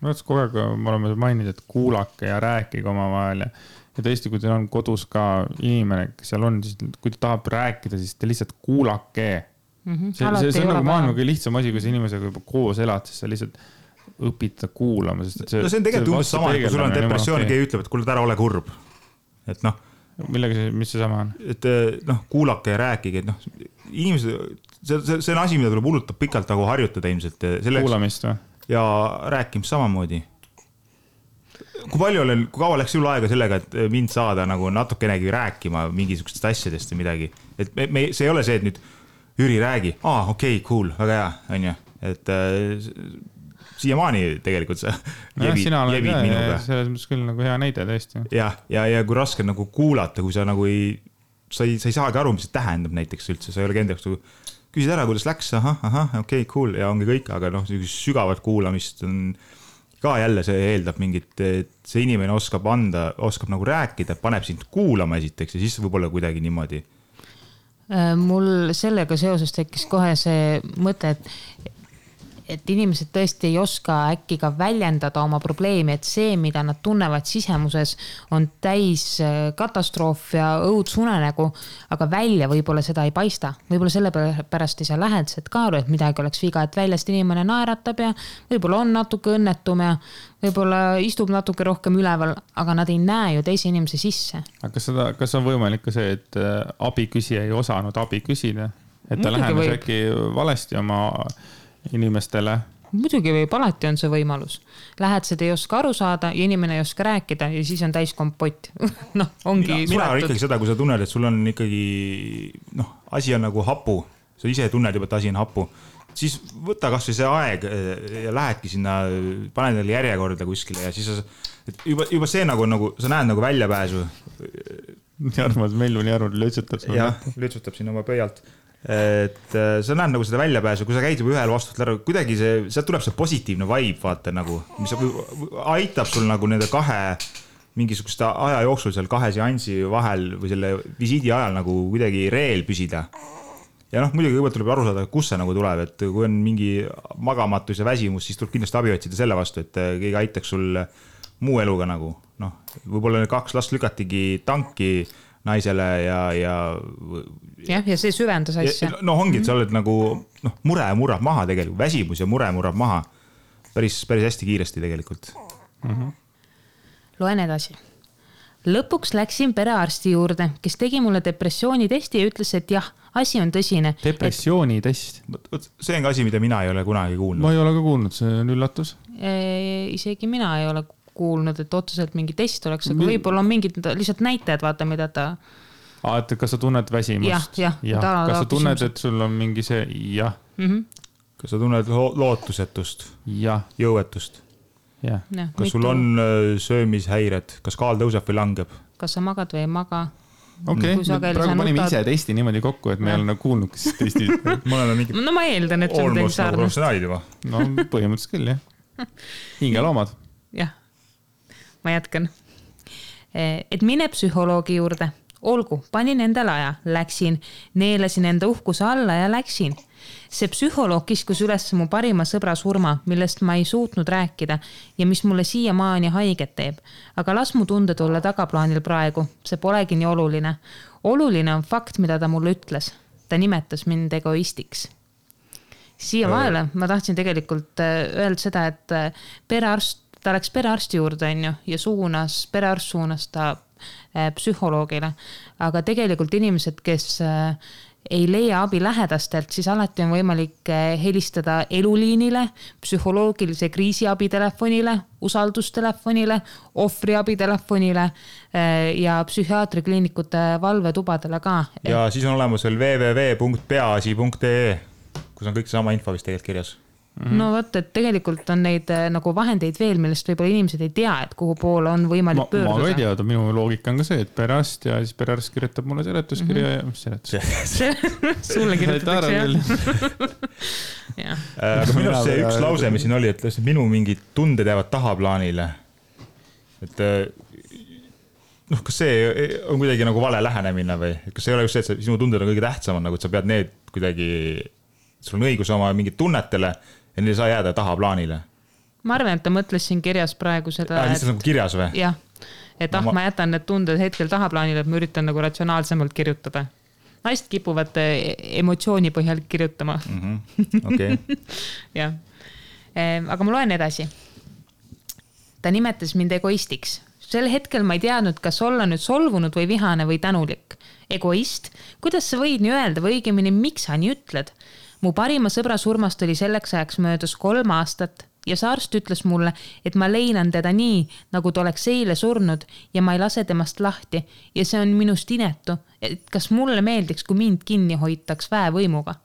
Kogu aeg me oleme maininud, et kuulake ja rääkige omavahel ja tõesti, kui teil on kodus ka inimene, kes seal on, siis kui ta tahab rääkida, siis te lihtsalt kuulake. See on nagu maailma kõige lihtsam asi, kui sa inimesega juba koos elad, siis sa lihtsalt õpid kuulama. See on tegelikult umbes sama, kui sul on depressioon, keegi ütleb, et kuule, ära ole kurb. Et mis see sama on? Et kuulake ja rääkige, et inimesed, see on asi, mida tuleb hullutab pikalt nagu harjutada ilmselt. Kuulamist või? Ja rääkimist samamoodi. Kui kaua läks sul aega sellega, et mind saada nagu natukenegi rääkima mingisugustest asjadest või midagi? Et see ei ole see, et nüüd Jüri räägi, okei, cool, väga hea, on ju. Et siiamaani tegelikult sa jebid minuga. Selles mõttes küll nagu hea näide tõesti. Ja kui raske nagu kuulata, kui sa nagu sa ei saagi aru, mis see tähendab näiteks üldse, sa ei ole kendaks küsid ära, kuidas läks, okei, cool, ja ongi kõik, aga sügavat kuulamist on ka jälle, see eeldab mingit, et see inimene oskab nagu rääkida, paneb sind kuulama esiteks ja siis võib-olla kuidagi niimoodi. Mul sellega seoses tekkis kohe see mõte, et inimesed tõesti ei oska äkki ka väljendada oma probleemi, et see, mida nad tunnevad sisemuses, on täis katastroof ja õudsunenägu, aga välja võib-olla seda ei paista. Võib-olla selle pärast ei saa lähedased ka aru, et midagi oleks viga, et väljast inimene naeratab ja võib-olla on natuke õnnetum ja võib-olla istub natuke rohkem üleval, aga nad ei näe ju teise inimese sisse. Aga kas on võimalik ka see, et abiküsija ei osanud abi küsida? Et ta lähenes äkki valesti oma inimestele muidugi võib, alati on see võimalus. Lähed, seda ei oska aru saada ja inimene ei oska rääkida ja siis on täis kompott. Noh, ongi mina olen ikkagi seda, kui sa tunned, et sul on ikkagi, asi on nagu hapu. Sa ise tunned juba, et asi on hapu. Siis võta kas või see aeg ja lähedki sinna, pane neile järjekorda kuskile ja siis juba see nagu sa näed nagu väljapääsu. Armas Melvuni arvud lütsutab. Jah, lütsutab siin oma pöialt. Et sa näed nagu seda väljapääsu, kui sa käid juba ühel vastust lära, kuidagi sealt tuleb see positiivne vibe, vaata nagu, mis aitab sul nagu nende kahe mingisugust aja jooksul seal kahe seansi vahel või selle visiidi ajal nagu kuidagi reel püsida. Ja muidugi kõigepealt tuleb aru saada, kus see nagu tuleb, et kui on mingi magamatus ja väsimus, siis tuleb kindlasti abi otsida selle vastu, et keegi aitaks sul muu eluga nagu, võib-olla 2 last lükatigi tanki naisele ja see süvendas asja. Ongi, et sa oled nagu, mure murrab maha tegelikult, väsimus ja mure murrab maha päris hästi kiiresti tegelikult. Loen edasi. Lõpuks läksin perearsti juurde, kes tegi mulle depressioonitesti ja ütles, et jah, asi on tõsine. Depressioonitest? See on ka asi, mida mina ei ole kunagi kuulnud. Ma ei ole ka kuulnud, see on üllatus. Isegi mina ei ole kuulnud, et otseselt mingi test oleks, aga võib-olla on mingid lihtsalt näitajad, vaata, mida ta... Et kas sa tunned väsimust? Jah. Kas sa tunned, et sul on mingi see... Jah. Kas sa tunned lootusetust? Jah. Jõuetust? Jah. Kas sul on söömishäired? Kas kaal tõuseb või langeb? Kas sa magad või ei maga? Okei, praegu panime ise testi niimoodi kokku, et me ei ole kuulnud, kes testi... ma eeldan, et see on teil sarnast. No põhimõtteliselt küll, jah. Hingeloomad. Jah. Ma jätkan. Et mine psühholoogi juurde. Olgu, panin endale aja, läksin, neelasin enda uhkuse alla ja läksin. See psühholoog kiskus üles mu parima sõbra surma, millest ma ei suutnud rääkida ja mis mulle siiamaani haiget teeb. Aga las mu tunded olla tagaplaanil praegu, see polegi nii oluline. Oluline on fakt, mida ta mulle ütles. Ta nimetas mind egoistiks. Siia vahele ma tahtsin tegelikult öelda seda, et ta läks perearsti juurde ja perearst suunas ta psühholoogile, aga tegelikult inimesed, kes ei leia abi lähedastelt, siis alati on võimalik helistada eluliinile, psühholoogilise kriisiabitelefonile, usaldustelefonile, ohvriabitelefonile ja psühhiaatrikliinikute valvetubadele ka. Ja siis on olemas veel www.peaasi.ee, kus on kõik sama info vist tegelikult kirjas. No võtta, et tegelikult on neid nagu vahendeid veel, millest võib-olla inimesed ei tea, et kuhu poole on võimalik pöörduda. Ma ei tea, minu loogika on ka see, et perearst ja siis perearst kirjutab mulle seletuskirja ja mis seletus? Sulle kirjutatakse, jah. Aga minu see üks lause, mis siin oli, et minu mingid tunded jäävad tahaplaanile. Et kas see on kuidagi nagu vale lähenemine või? Kas see ei ole just see, et sinu tunded on kõige tähtsamad, nagu et sa pead need kuidagi, sul on õigus oma mingid tunnetele ja neil ei saa jääda tahaplaanile. Ma arvan, et ta mõtles siin kirjas praegu seda... Lihtsalt nagu kirjas või? Jah, et ma jätan need tunded hetkel tahaplaanile, et ma üritan nagu ratsionaalsemalt kirjutada. Naist kipuvad emotsiooni põhjal kirjutama. Okei. Jah. Aga ma loen edasi. Ta nimetas mind egoistiks. Sel hetkel ma ei teadnud, kas olla nüüd solvunud või vihane või tänulik. Egoist? Kuidas sa võid nii öelda või õigemini, miks sa nii ütled? Mu parima sõbra surmast oli selleks ajaks möödas 3 aastat ja see arst ütles mulle, et ma leinan teda nii, nagu ta oleks eile surnud ja ma ei lase temast lahti ja see on minust inetu, et kas mulle meeldiks, kui mind kinni hoitaks väevõimuga.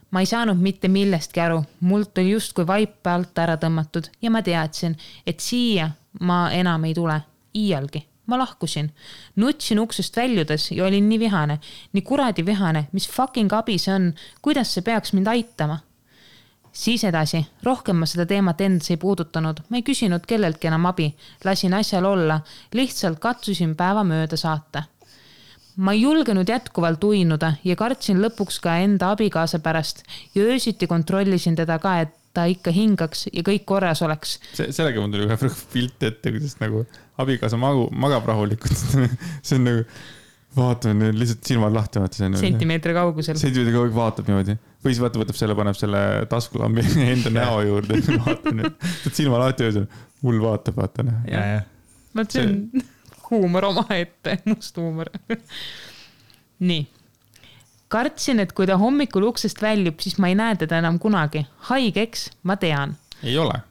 Ma ei saanud mitte millestki aru, mult oli justkui vaipe alt ära tõmmatud ja ma teadsin, et siia ma enam ei tule, iialgi. Ma lahkusin, nutsin uksest väljudes ja olin nii vihane, nii kuradi vihane, mis fucking abi see on, kuidas see peaks mind aitama. Siis edasi, rohkem ma seda teemat endas ei puudutanud, ma ei küsinud kelleltki enam abi, lasin asjal olla, lihtsalt katsusin päeva mööda saata. Ma ei julgenud jätkuvalt uinuda ja kartsin lõpuks ka enda abikaasa pärast ja öösiti kontrollisin teda ka, et ta ikka hingaks ja kõik korras oleks. Sellega mul tuli ühe pilt ette, kuidas nagu abikaasa magab rahulikult. See on nagu, vaatame, lihtsalt silmad lahti. Sentimeetri kaugusel. Sentimeetri kaugusel vaatab niimoodi. Või siis võtab selle, paneb selle taskulambi enda näo juurde. Vaata nüüd. Silma lahti öösel. Hull vaatab, vaata. See on huumor oma ette, must huumor. Nii. kartsin, et kui ta hommikul uksest väljub, siis ma ei näe teda enam kunagi. Haigeks, ma tean. Ei ole.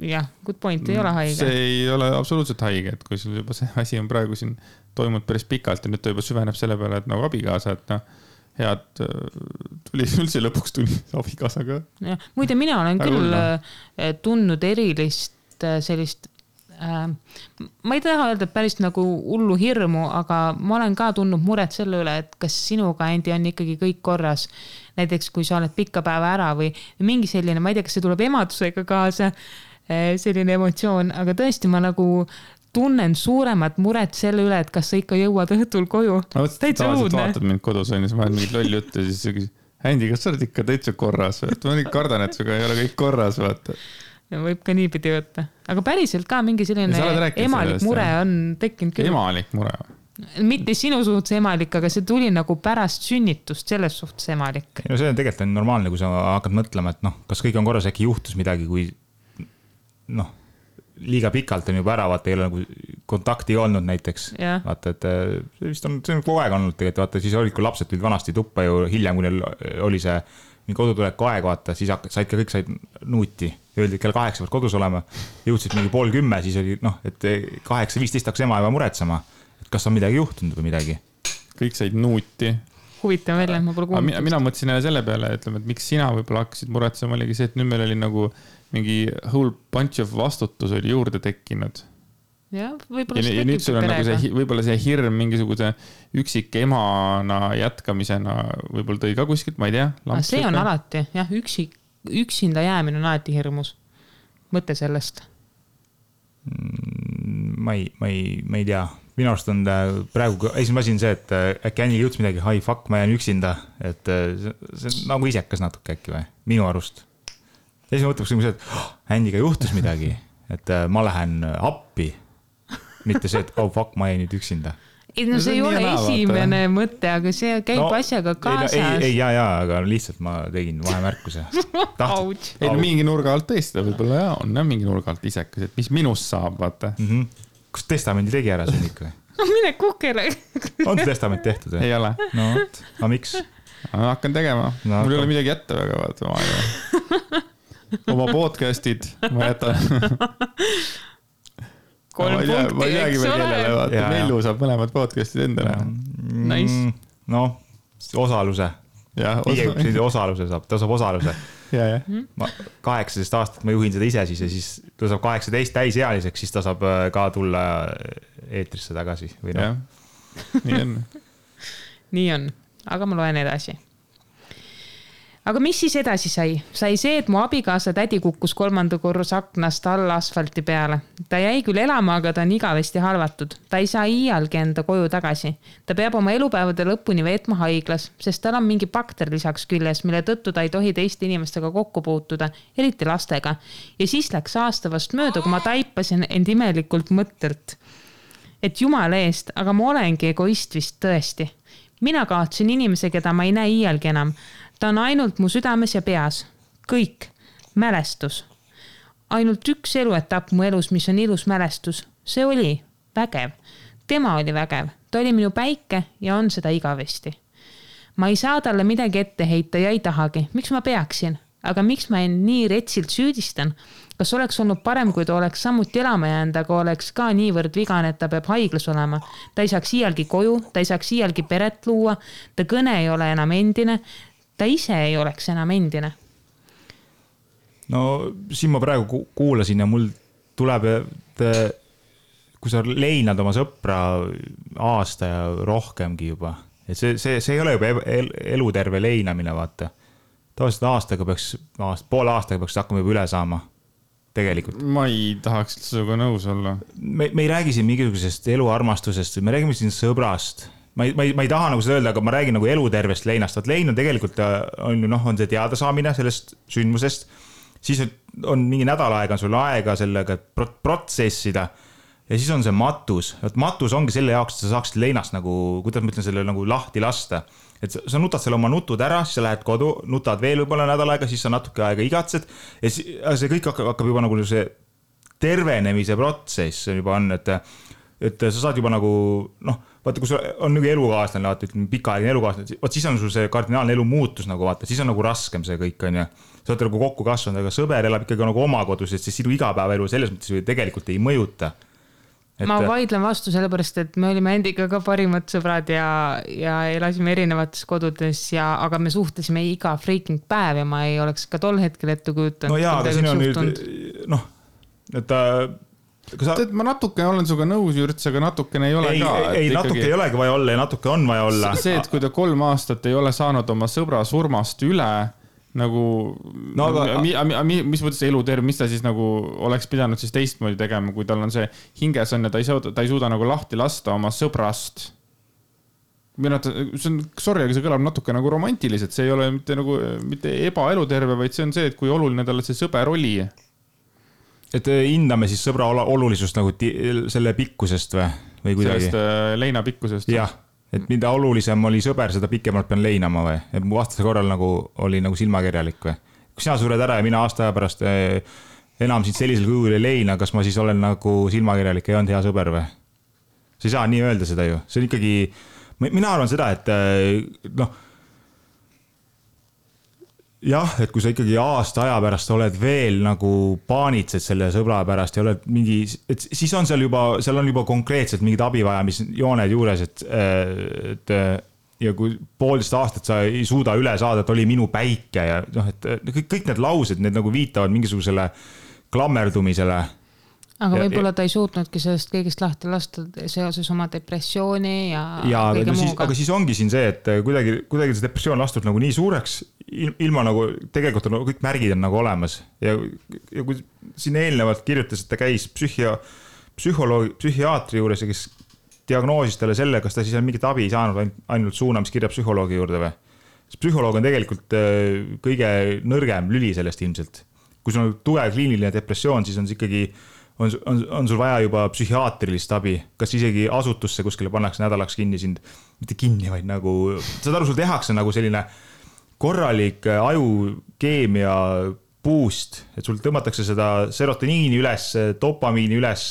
Jah, good point, ei ole haige. See ei ole absoluutselt haige, et kui sul juba see asi on praegu siin toimunud päris pikalt ja nüüd ta juba süveneb selle peale, et nagu abikaasa, et head tuli üldse lõpuks tuli abikaasaga. Muide, mina olen küll tundnud erilist sellist, ma ei taha öelda päris nagu hullu hirmu, aga ma olen ka tundnud muret selle üle, et kas sinuga, Andy, on ikkagi kõik korras. Näiteks, kui sa oled pikka päeva ära või mingi selline, ma ei tea, kas see tuleb emadusega kaasa, selline emotsioon, aga tõesti ma nagu tunnen suuremat muret selle üle, et kas sa ikka jõuad õhtul koju. Täitsa õudne. Vaatad mind kodus on ja sa vahel mingid lolli juttu ja siis sa küsid, Andy, kas sa oled ikka täitsa korras? Ma nii kardan, et suga ei ole kõik korras, vaata. Ja võib ka niipidi võtta. Aga päriselt ka mingi selline emalik mure on tekkinud küll. Emalik mure? Mitte sinu suhtes emalik, aga see tuli nagu pärast sünnitust selles suhtes emalik. No see on tegelikult normaalne, kui sa hakkad mõtlema, et kas kõik on korras, äkki juhtus midagi, kui liiga pikalt on juba ära, vaata, ei ole nagu kontakti olnud näiteks. Vaata, et see on kogu aeg olnud tegelikult, vaata, siis olid, kui lapsed tulid vanasti tuppa ju hiljem, kui neil oli see kodutuleku aeg, vaata, siis kõik said nuuti. Öeldi, et kell 8 pead kodus olema, jõudsid mingi 9:30, siis oli, et 8:15 hakkas ema juba muretsema, et kas on midagi juhtunud või midagi. Kõik said nuuti. Huvitav välja, ma pole kuulnud. Mina mõtlesin jälle selle peale, ütleme, et miks sina võib-olla hakkasid muretsema, oligi see, et nüüd meil oli nagu mingi whole bunch of vastutus oli juurde tekkinud. Ja, võib-olla ja nüüd sul on nagu see, võib-olla see hirm mingisuguse üksik emana jätkamisena võib-olla tõi ka kuskilt, ma ei tea. See on alati, jah, üksinda jäämine on alati hirmus. Mõte sellest. Ma ei tea. Minu arust on praegu esimene asi on see, et äkki Anil jõudis midagi, hi fuck, ma jään üksinda. Et see on nagu isekas natuke äkki või? Minu arust. Esimene mõtleks see, et Andiga juhtus midagi, et ma lähen appi. Mitte see, et oh fuck, ma jäin nüüd üksinda. No see ei ole esimene mõte, aga see käib asjaga kaasas. Ei, aga lihtsalt ma tegin vahemärkuse. Ei, mingi nurga alt tõesti, võib-olla on mingi nurga alt isekas, et mis minust saab, vaata. Kas testamendi tegi ära see ikka? Mine kukele. On see testament tehtud? Ei ole. No, aga miks? Hakkan tegema. Mul ei ole midagi jätta väga, vaata. Oma podcastid ma jätan. 3 punkti, eks ole. Mellu saab mõlemad podcastid endale. Nice. No, osaluse. Osaluse saab, ta saab osaluse. Ma 18 aastat ma juhin seda ise siis ja siis ta saab 18 täisealiseks, siis ta saab ka tulla eetrisse tagasi. Või no? Nii on. Nii on, aga ma loen edasi. Aga mis siis edasi sai? Sai see, et mu abikaasa tädi kukkus 3. korrus aknast alla asfalti peale. Ta jäi küll elama, aga ta on igavesti halvatud. Ta ei saa iialgi enda koju tagasi. Ta peab oma elupäevade lõpuni veetma haiglas, sest tal on mingi bakter lisaks küljes, mille tõttu ta ei tohi teiste inimestega kokku puutuda, eriti lastega. Ja siis läks aasta vast mööda, kui ma taipasin end imelikult mõttelt. Et jumala eest, aga ma olengi egoist vist tõesti. Mina kaotsin inimese, keda ma ei näe iialgi enam. Ta on ainult mu südames ja peas. Kõik. Mälestus. Ainult üks eluetapp mu elus, mis on ilus mälestus. See oli vägev. Tema oli vägev. Ta oli minu päike ja on seda igavesti. Ma ei saa talle midagi ette heita ja ei tahagi. Miks ma peaksin? Aga miks ma nii retsilt süüdistan? Kas oleks olnud parem, kui ta oleks samuti elama jäänud, aga oleks ka niivõrd vigane, et ta peab haiglas olema. Ta ei saaks iialgi koju, ta ei saaks iialgi peret luua, ta kõne ei ole enam endine, ta ise ei oleks enam endine. No siin ma praegu kuulasin ja mul tuleb, kui sa leinad oma sõpra aasta ja rohkemgi juba, et see ei ole juba eluterve leinamine, vaata. Tavaliselt poole aastaga peaks hakkama juba üle saama. Tegelikult. Ma ei tahaks sinuga nõus olla. Me ei räägi siin mingisugusest eluarmastusest, me räägime siin sõbrast. Ma ei taha nagu seda öelda, aga ma räägin nagu elutervest leinast. Lein on tegelikult on see teada saamine sellest sündmusest. Siis on mingi nädal aega, on sul aega sellega protsessida. Ja siis on see matus. Matus ongi selle jaoks, et sa saaksid leinast nagu, kuidas ma ütlen, selle nagu lahti lasta. Et sa nutad selle oma nutud ära, siis sa lähed kodu, nutad veel võib-olla nädal aega, siis sa natuke aega igatsed. Ja see kõik hakkab juba nagu see tervenemise protsess juba on, et et sa saad juba nagu, vaata, kui sul on nagu elukaaslane, vaata, ütleme, pikaajaline elukaaslane, vaat siis on sul see kardinaalne elu muutus nagu vaata, siis on nagu raskem see kõik, on ju. Sa oled nagu kokku kasvanud, aga sõber elab ikkagi nagu oma kodus, et siis sinu igapäevaelu selles mõttes ju tegelikult ei mõjuta. Ma vaidlen vastu sellepärast, et me olime endiga ka parimad sõbrad ja elasime erinevates kodudes aga me suhtlesime iga freaking päev ja ma ei oleks ka tol hetkel ette kujutanud. No jaa, aga siin on nüüd, et ma natuke olen suga nõus, Jürts, aga natukene ei ole ka. Ei, natuke ei olegi vaja olla ja natuke on vaja olla. See, et kui ta 3 aastat ei ole saanud oma sõbra surmast üle, nagu, mis mõttes eluterv, mis ta siis nagu oleks pidanud siis teistmoodi tegema, kui tal on see hinges on ja ta ei suuda nagu lahti lasta oma sõbrast. Sorry, aga see kõlab natuke nagu romantiliselt, see ei ole mitte ebaeluterve, vaid see on see, et kui oluline talle see sõber oli. Et hindame siis sõbra olulisust nagu selle pikkusest või kuidagi? Sellest leina pikkusest. Jah. Et mida olulisem oli sõber, seda pikemalt pean leinama või? Et mu vastase korral nagu oli nagu silmakirjalik või? Kui sina sured ära ja mina aasta aja pärast enam sind sellisel kujul ei leina, kas ma siis olen nagu silmakirjalik ja ei olnud hea sõber või? Sa ei saa nii öelda seda ju. See on ikkagi, mina arvan seda, et jah, et kui sa ikkagi aasta aja pärast oled veel nagu paanitsed selle sõbra pärast ja oled mingi, et siis on seal on juba konkreetselt mingid abivajamisjooned juures, et ja kui 1,5 aastat sa ei suuda üle saada, et oli minu päike ja et kõik need laused, need nagu viitavad mingisugusele klammerdumisele. Aga võib-olla ta ei suutnudki sellest kõigest lahti lasta seoses oma depressiooni ja kõige muuga. Aga siis ongi siin see, et kuidagi see depressioon lastud nagu nii suureks, ilma nagu tegelikult on kõik märgid on nagu olemas. Ja kui siin eelnevalt kirjutas, et ta käis psühhiaatri juures ja kes diagnoosis talle selle, kas ta siis on mingit abi saanud ainult suunamiskirja psühholoogi juurde või. Psühholoog on tegelikult kõige nõrgem lüli sellest ilmselt. Kui sul on tugev kliiniline depressioon, siis on see ikkagi on sul vaja juba psühhiaatrilist abi, kas isegi asutusse kuskile pannakse nädalaks kinni sind, mitte kinni, vaid nagu, saad aru, sul tehakse nagu selline korralik ajukeemia boost, et sul tõmmatakse seda serotoniini üles, dopamiini üles,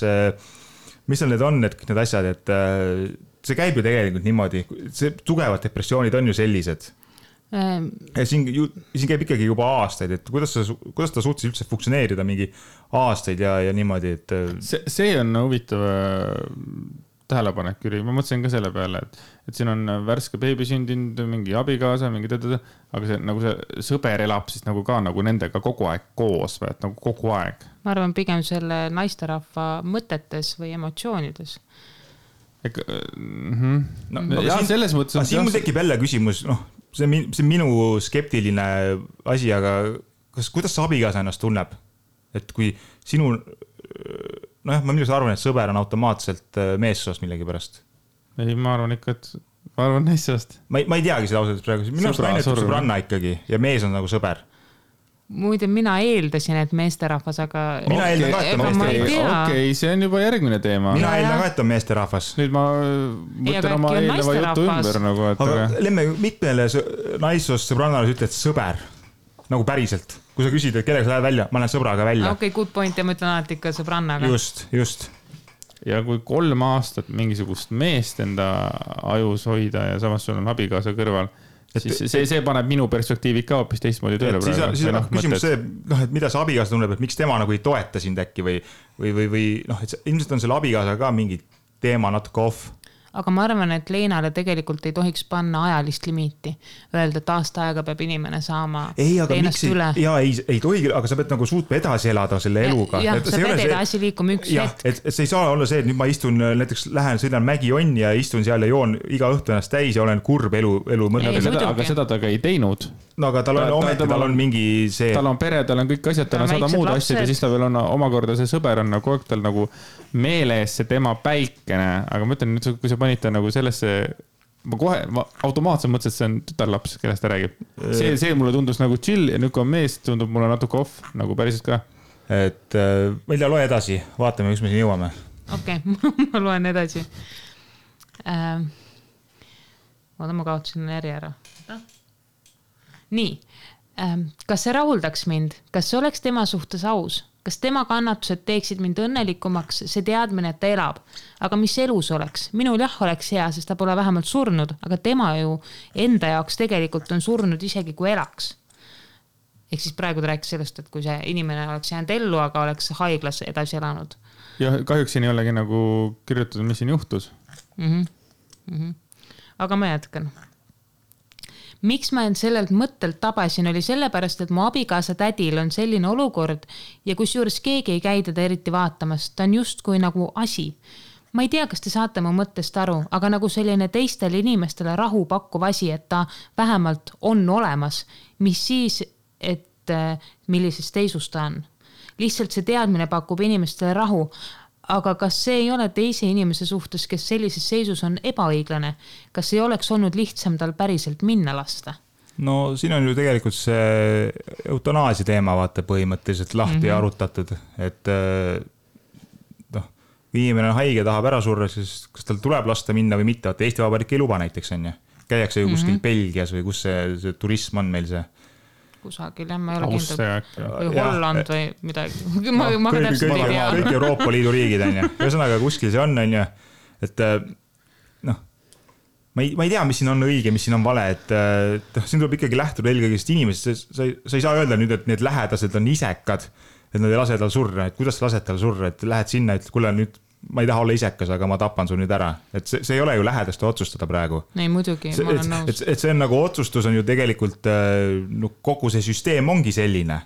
mis need on, et kõik need asjad, et see käib ju tegelikult niimoodi, see tugevad depressioonid on ju sellised. Ja siin käib ikkagi juba aastaid, et kuidas ta suutis üldse funktsioneerida mingi aastaid ja niimoodi, et see on huvitav tähelepanek, Jüri, ma mõtlesin ka selle peale, et siin on värske beebi sündinud, mingi abikaasa, mingi aga see, nagu see sõber elab siis nagu ka nagu nendega kogu aeg koos või, et nagu kogu aeg. Ma arvan pigem selle naisterahva mõtetes või emotsioonides. Ja selles mõttes siin mul tekib jälle küsimus, see on minu skeptiline asi, aga kuidas see abikaasa ennast tunneb? Et kui sinu, ma millest arvan, et sõber on automaatselt meessoost millegi pärast. Ei, ma arvan ikka, et ma arvan naissoost. Ma ei teagi seda ausalt praegu. Minu arust naine ütleb sõbranna ikkagi ja mees on nagu sõber. Muide, mina eeldasin, et meesterahvas, aga mina eeldan ka, et on meesterahvas. Okei, see on juba järgmine teema. Mina eeldan ka, et on meesterahvas. Nüüd ma mõtlen oma eelneva jutu ümber nagu, et aga lemme mitmele naissoost sõbrannale ütled sõber, nagu päriselt. Kui sa küsid, et kellega sa lähed välja, ma lähen sõbraga välja. Okei, good point ja ma ütlen alati ikka sõbrannaga. Just. Ja kui 3 aastat mingisugust meest enda ajus hoida ja samas sul on abikaasa kõrval, siis see paneb minu perspektiivi ka hoopis teistmoodi tööle praegu. Siis on küsimus see, et mida see abikaasa tunneb, et miks tema nagu ei toeta sind äkki või et ilmselt on selle abikaasa ka mingi teema natuke off. Aga ma arvan, et Leenale tegelikult ei tohiks panna ajalist limiiti. Öelda, et aasta aega peab inimene saama Leenast üle. Jaa, ei tohi, aga sa pead nagu suutma edasi elada selle eluga. Jah, sa pead edasi liikuma üks hetk. Et see ei saa olla see, et nüüd ma istun, näiteks sõidan Mägi-Onni ja istun seal ja joon iga õhtu ennast täis ja olen kurb elu mõnda. Aga seda ta ka ei teinud. No aga tal on mingi see... Tal on pere, tal on kõik asjad, tal on 100 muud asjad ja siis ta veel on omakorda see sõber on nagu tal nagu meeles see tema päikene, aga ma ütlen nüüd, kui sa panid ta nagu sellesse, ma automaatselt mõtlesin, et see on tütarlaps, kellest ta räägib. See mulle tundus nagu chill ja nüüd kui on mees, tundub mulle natuke off, nagu päriselt ka. Et Velja, loe edasi, vaatame, kus me siin jõuame. Okei, ma loen edasi. Ma kaotasin järje ära. Nii, kas see rahuldaks mind? Kas see oleks tema suhtes aus? kas tema kannatused teeksid mind õnnelikumaks, see teadmine, et ta elab. Aga mis elus oleks? Minul jah oleks hea, sest ta pole vähemalt surnud, aga tema ju enda jaoks tegelikult on surnud isegi kui elaks. Ehk siis praegu ta rääkis sellest, et kui see inimene oleks jäänud ellu, aga oleks haiglas edasi elanud. Ja kahjuks siin ei olegi nagu kirjutatud, mis siin juhtus. Aga ma jätkan. Miks ma end sellelt mõttelt tabasin, oli sellepärast, et mu abikaasa tädil on selline olukord ja kusjuures keegi ei käi teda eriti vaatamas. Ta on just kui nagu asi. Ma ei tea, kas te saate mu mõttest aru, aga nagu selline teistele inimestele rahu pakkuv asi, et ta vähemalt on olemas, mis siis, et millises teisus ta on. Lihtsalt see teadmine pakub inimestele rahu, aga kas see ei ole teise inimese suhtes, kes sellises seisus on ebaõiglane? Kas ei oleks olnud lihtsam tal päriselt minna lasta? No siin on ju tegelikult see eutanaasia teema vaata põhimõtteliselt lahti arutatud, et kui inimene on haige, tahab ära surra, siis kas tal tuleb lasta minna või mitte, vaata Eesti Vabariik ei luba näiteks on ju. Käiakse ju kuskil Belgias või kus see turism on meil see kusagil, ma ei ole kindel. Või Holland või midagi. Ma täpselt ei tea. Kõik Euroopa Liidu riigid on ju. Ühesõnaga kuskil see on ju. Et ma ei tea, mis siin on õige, mis siin on vale. Et siin tuleb ikkagi lähtuda eelkõigest inimesest. Sa ei saa öelda nüüd, et need lähedased on isekad, et nad ei lase tal surra. Et kuidas sa lased tal surra? Et lähed sinna, et kuule nüüd ma ei taha olla isekas, aga ma tapan su nüüd ära. Et see ei ole ju lähedaste otsustada praegu. Ei, muidugi, ma olen nõus. Et see on nagu otsustus on ju tegelikult, kogu see süsteem ongi selline.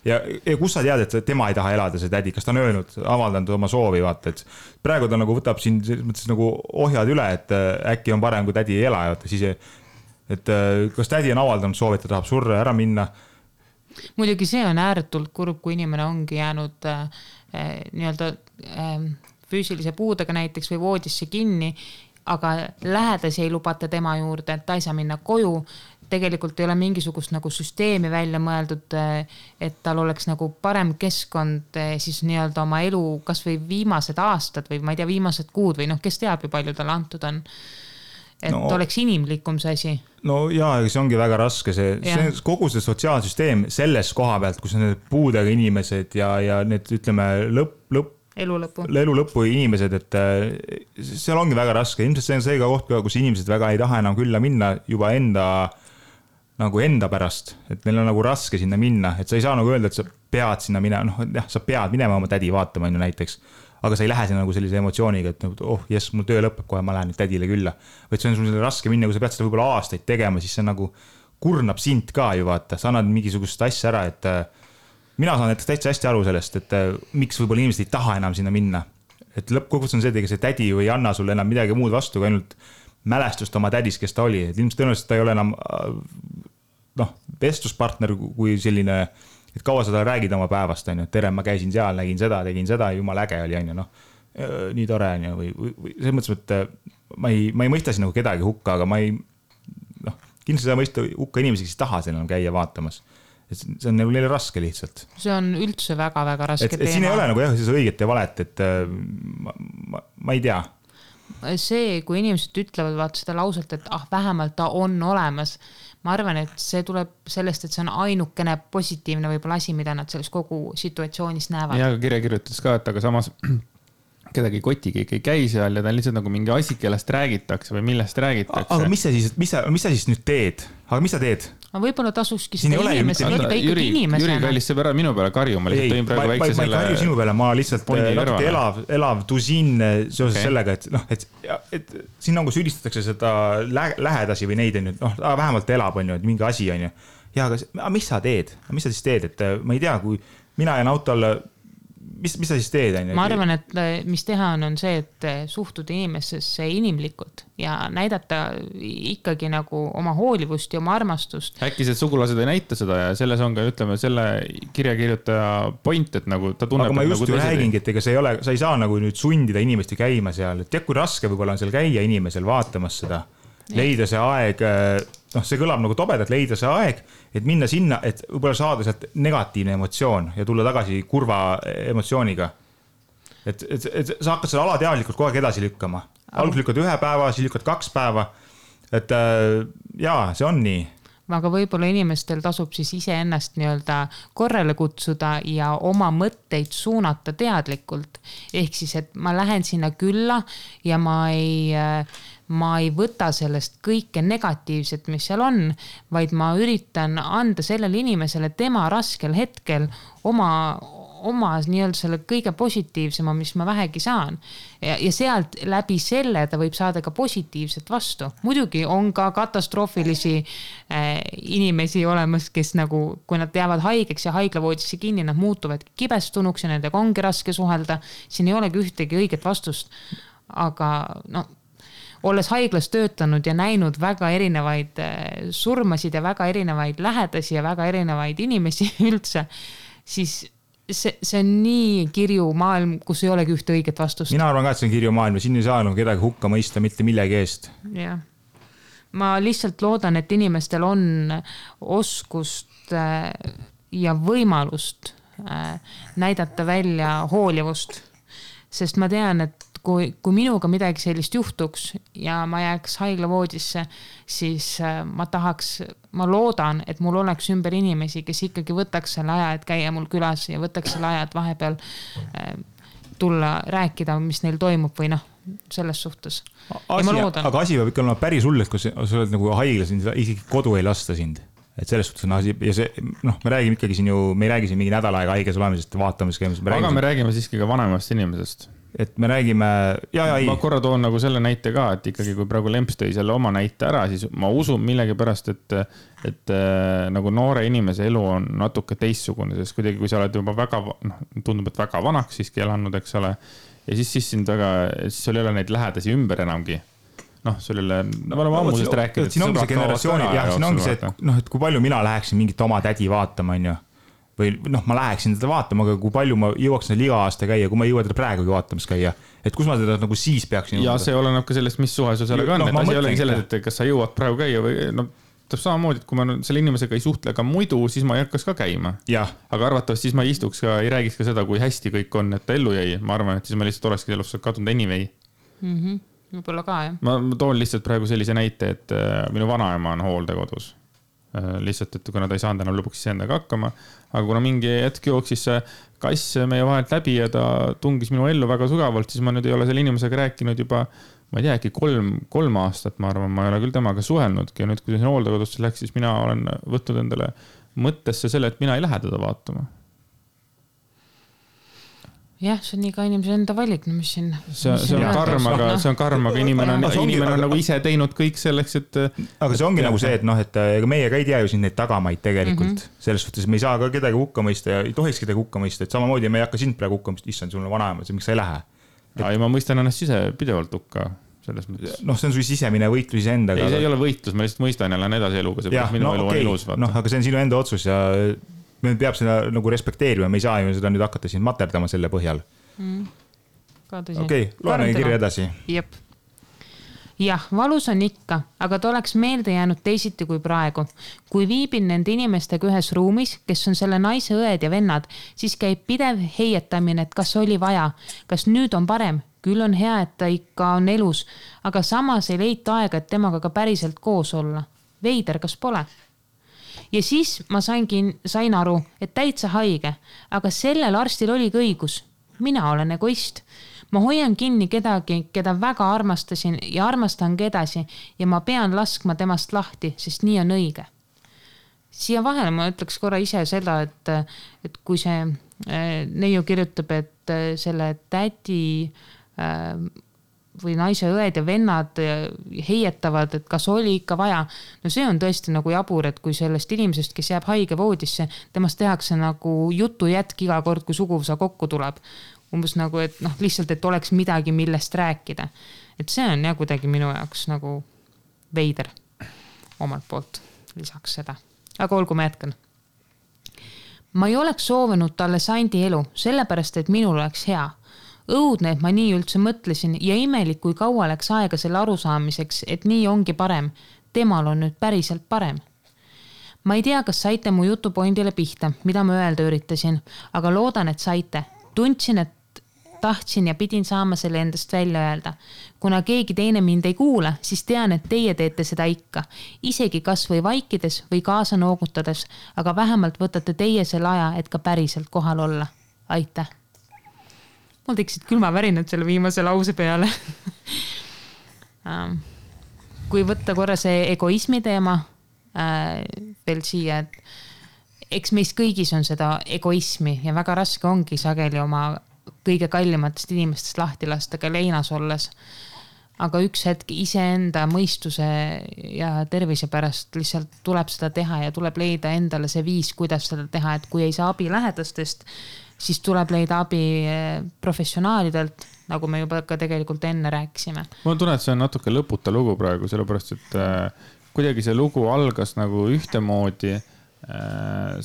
Ja kus sa tead, et tema ei taha elada, see tädi, kas ta on öelnud, avaldanud oma soovi, vaata, et praegu ta nagu võtab siin mõttes nagu ohjad üle, et äkki on parem, kui tädi ei ela, vaata, siis et kas tädi on avaldanud soovi, et ta tahab surra ära minna. Muidugi see on ääretult kurb, kui inimene ongi jäänud nii-öelda füüsilise puudega näiteks või voodisse kinni, aga lähedasi ei lubata tema juurde, et ta ei saa minna koju. Tegelikult ei ole mingisugust nagu süsteemi välja mõeldud, et tal oleks nagu parem keskkond siis nii-öelda oma elu kas või viimased aastad või ma ei tea, viimased kuud või kes teab ju palju tal antud on. Et oleks inimlikum see asi. No jaa, see ongi väga raske. See kogu see sotsiaalsüsteem selles koha pealt, kus on need puudega inimesed ja need ütleme elu lõppu inimesed, et seal ongi väga raske. Ilmselt see on see ka koht, kus inimesed väga ei taha enam külla minna juba enda pärast, et neil on nagu raske sinna minna, et sa ei saa nagu öelda, et sa pead sinna minema, sa pead minema oma tädi vaatama näiteks, aga sa ei lähe sinna nagu sellise emotsiooniga, et jess, mul töö lõpeb kohe, ma lähen nüüd tädile külla. Või see on sul raske minna, kui sa pead seda võib-olla aastaid tegema, siis see nagu kurnab sind ka ju vaata, sa annad mingisugust asja ära, et mina saan näiteks täitsa hästi aru sellest, et miks võib-olla inimesed ei taha enam sinna minna. Et lõppkokkuvõttes on see, et see tädi ei anna sulle enam midagi muud vastu, kui ainult mälestust oma tädis, kes ta oli. Et ilmselt tõenäoliselt ta ei ole enam vestluspartner kui selline, et kaua sa räägid oma päevast, tere, ma käisin seal, nägin seda, tegin seda, jumal äge oli, nii tore, või selles mõttes, et ma ei mõista siin nagu kedagi hukka, aga ma ei, kindlasti sa mõista hukka inimesi, kes taha seal käia vaatamas. Et see on nagu neile raske lihtsalt. See on üldse väga-väga raske teema. Et siin ei ole nagu siis õiget ja valet, et ma ei tea. See, kui inimesed ütlevad vaata seda lauselt, et vähemalt ta on olemas, ma arvan, et see tuleb sellest, et see on ainukene positiivne võib-olla asi, mida nad selles kogu situatsioonis näevad. Ja kirja kirjutas ka, et aga samas kedagi koti keegi ei käi seal ja ta on lihtsalt nagu mingi asi, kellest räägitakse või millest räägitakse. Aga mis sa siis nüüd teed? Aga mis sa teed? Aga võib-olla tasuski seda inimest võtta ikkagi inimesena. Jüri kallis sõber minu peale karju, ma lihtsalt tõin praegu väikse selle... Ma ei karju sinu peale, ma lihtsalt natuke elav tusin seoses sellega, et siin nagu süüdistatakse seda lähedasi või neid, vähemalt elab, et mingi asi on ju. Ja, aga mis sa teed? Mis sa siis teed? Et ma ei tea, kui mina jään autol mis sa siis teed? Ma arvan, et mis teha on see, et suhtuda inimesesse inimlikult ja näidata ikkagi nagu oma hoolivust ja oma armastust. Äkki see sugulased ei näita seda ja selles on ka, ütleme, selle kirjakirjutaja point, et nagu ta tunneb... Aga ma just ju räägingi, et ega sa ei saa nagu nüüd sundida inimesti käima seal. Tead, kui raske võib-olla on seal käia inimesel vaatamas seda. Leida see aeg, see kõlab nagu tobedalt, leida see aeg, et minna sinna, et võib-olla saada sealt negatiivne emotsioon ja tulla tagasi kurva emotsiooniga. Et sa hakkad seda alateadlikult kogu aeg edasi lükkama. Alguses lükkad 1 päeva, siis lükkad 2 päeva. Et jaa, see on nii. aga võib-olla inimestel tasub siis iseennast nii-öelda korrale kutsuda ja oma mõtteid suunata teadlikult. Ehk siis, et ma lähen sinna külla ja ma ei võta sellest kõike negatiivset, mis seal on, vaid ma üritan anda sellele inimesele tema raskel hetkel oma nii-öelda selle kõige positiivsema, mis ma vähegi saan. Ja sealt läbi selle ta võib saada ka positiivset vastu. Muidugi on ka katastroofilisi inimesi olemas, kes nagu, kui nad jäävad haigeks ja haiglavoodisse kinni, nad muutuvad kibestunuks ja nendega ongi raske suhelda. Siin ei olegi ühtegi õiget vastust. Aga olles haiglas töötanud ja näinud väga erinevaid surmasid ja väga erinevaid lähedasi ja väga erinevaid inimesi üldse, siis see on nii kirju maailm, kus ei olegi ühte õiget vastust. Mina arvan ka, et see on kirju maailm ja siin ei saa kedagi hukka mõista mitte millegi eest. Jah. Ma lihtsalt loodan, et inimestel on oskust ja võimalust näidata välja hoolivust. Sest ma tean, et kui minuga midagi sellist juhtuks ja ma jääks haiglavoodisse, siis ma loodan, et mul oleks ümber inimesi, kes ikkagi võtaks selle aja, et käia mul külas ja võtaks selle aja, et vahepeal tulla rääkida, mis neil toimub või selles suhtes. Aga asi peab ikka olema päris hull, et kui sa oled nagu haiglas, isegi kodu ei lasta sind. Et selles suhtes on asi, ja see, me räägime ikkagi siin ju, me ei räägi siin mingi nädal aega haiges olemisest ja vaatamis käimisest. Aga me räägime siiski ka vanemast inimesest. Et me räägime, ma korra toon nagu selle näite ka, et ikkagi kui praegu Lemps tõi selle oma näite ära, siis ma usun millegipärast, et nagu noore inimese elu on natuke teistsugune, sest kuidagi kui sa oled juba väga, tundub, et väga vanaks siiski elanud, eks ole, ja siis sul ei ole neid lähedasi ümber enamgi. Sul ei ole, me oleme ammusest rääkinud. Siin ongi see generatsiooni, siin ongi see, et kui palju mina läheksin mingit oma tädi vaatama, või ma läheksin teda vaatama, aga kui palju ma jõuaks iga aasta käia, kui ma ei jõua teda praegugi vaatamas käia, et kus ma teda nagu siis peaksin jõuda. Ja see oleneb ka sellest, mis suhe sul sellega on, et asi ei olegi selles, et kas sa jõuad praegu käia või täpselt samamoodi, et kui ma selle inimesega ei suhtle ka muidu, siis ma ei hakkas ka käima. Aga arvatavasti siis ma ei istuks ka, ei räägiks ka seda, kui hästi kõik on, et ta ellu jäi. Ma arvan, et siis ma lihtsalt olekski elust kadunud anyway. Võib-olla ka, jah. Ma toon lihtsalt praegu sellise näite, et minu vanaema on hooldekodus. Lihtsalt, et kuna ta ei saanud enam lõpuks endaga hakkama, aga kuna mingi hetk jooksis see kass meie vahelt läbi ja ta tungis minu ellu väga sügavalt, siis ma nüüd ei ole selle inimesega rääkinud juba, ma ei tea, äkki 3 aastat, ma arvan, ma ei ole küll temaga suhelnudki ja nüüd, kui see hooldekodusse läks, siis mina olen võtnud endale mõttesse selle, et mina ei lähe teda vaatama. Jah, see on iga inimese enda valik, mis siin... See on karm, aga inimene on nagu ise teinud kõik selleks, et... Aga see ongi nagu see, et meie ka ei tea ju siin neid tagamaid tegelikult. Selles suhtes me ei saa ka kedagi hukka mõista ja ei tohiks kedagi hukka mõista, et samamoodi me ei hakka sind praegu hukka mõista, issand, sul on vanaema, miks sa ei lähe. Ja ma mõistan ennast ise pidevalt hukka selles mõttes. See on su sisemine võitlus endaga. Ei, see ei ole võitlus, ma lihtsalt mõistan ja lähen edasi eluga, see minu elu on elus. Aga see on sinu enda otsus ja... Me peab seda nagu respekteerima, me ei saa ju seda nüüd hakata siin materdama selle põhjal. Okei, loeme kirja edasi. Jep. Jah, valus on ikka, aga ta oleks meelde jäänud teisiti kui praegu. Kui viibin nende inimestega ühes ruumis, kes on selle naise õed ja vennad, siis käib pidev heietamine, et kas oli vaja, kas nüüd on parem. Küll on hea, et ta ikka on elus, aga samas ei leita aega, et temaga ka päriselt koos olla. Veider, kas pole? Ja siis ma sain aru, et täitsa haige, aga sellel arstil oligi õigus. Mina olen egoist. Ma hoian kinni kedagi, keda väga armastasin ja armastangi edasi ja ma pean laskma temast lahti, sest nii on õige. Siia vahele ma ütleks korra ise seda, et kui see neiu kirjutab, et selle tädi või naise õed ja vennad heietavad, et kas oli ikka vaja. No see on tõesti nagu jabur, et kui sellest inimesest, kes jääb haige voodisse, temast tehakse nagu jutu jätk iga kord, kui suguvõsa kokku tuleb. Umbes nagu, et lihtsalt, et oleks midagi, millest rääkida. Et see on kuidagi minu jaoks nagu veider omalt poolt lisaks seda. Aga olgu, ma jätkan. Ma ei oleks soovinud talle sandi elu, sellepärast, et minul oleks hea. Õudne, et ma nii üldse mõtlesin ja imelik, kui kaua läks aega selle arusaamiseks, et nii ongi parem. Temal on nüüd päriselt parem. Ma ei tea, kas saite mu jutupointile pihta, mida ma öelda üritasin, aga loodan, et saite. Tundsin, et tahtsin ja pidin saama selle endast välja öelda. Kuna keegi teine mind ei kuula, siis tean, et teie teete seda ikka. Isegi kas või vaikides või kaasa noogutades, aga vähemalt võtate teie selle aja, et ka päriselt kohal olla. Aitäh. Mul tekkisid külmavärinad selle viimase lause peale. Kui võtta korra see egoismi teema veel siia, et eks meis kõigis on seda egoismi ja väga raske ongi sageli oma kõige kallimatest inimestest lahti lasta ka leinas olles. Aga üks hetk iseenda mõistuse ja tervise pärast lihtsalt tuleb seda teha ja tuleb leida endale see viis, kuidas seda teha, et kui ei saa abi lähedastest, siis tuleb leida abi professionaalidelt, nagu me juba ka tegelikult enne rääkisime. Ma tunnen, et see on natuke lõputa lugu praegu, sellepärast, et kuidagi see lugu algas nagu ühtemoodi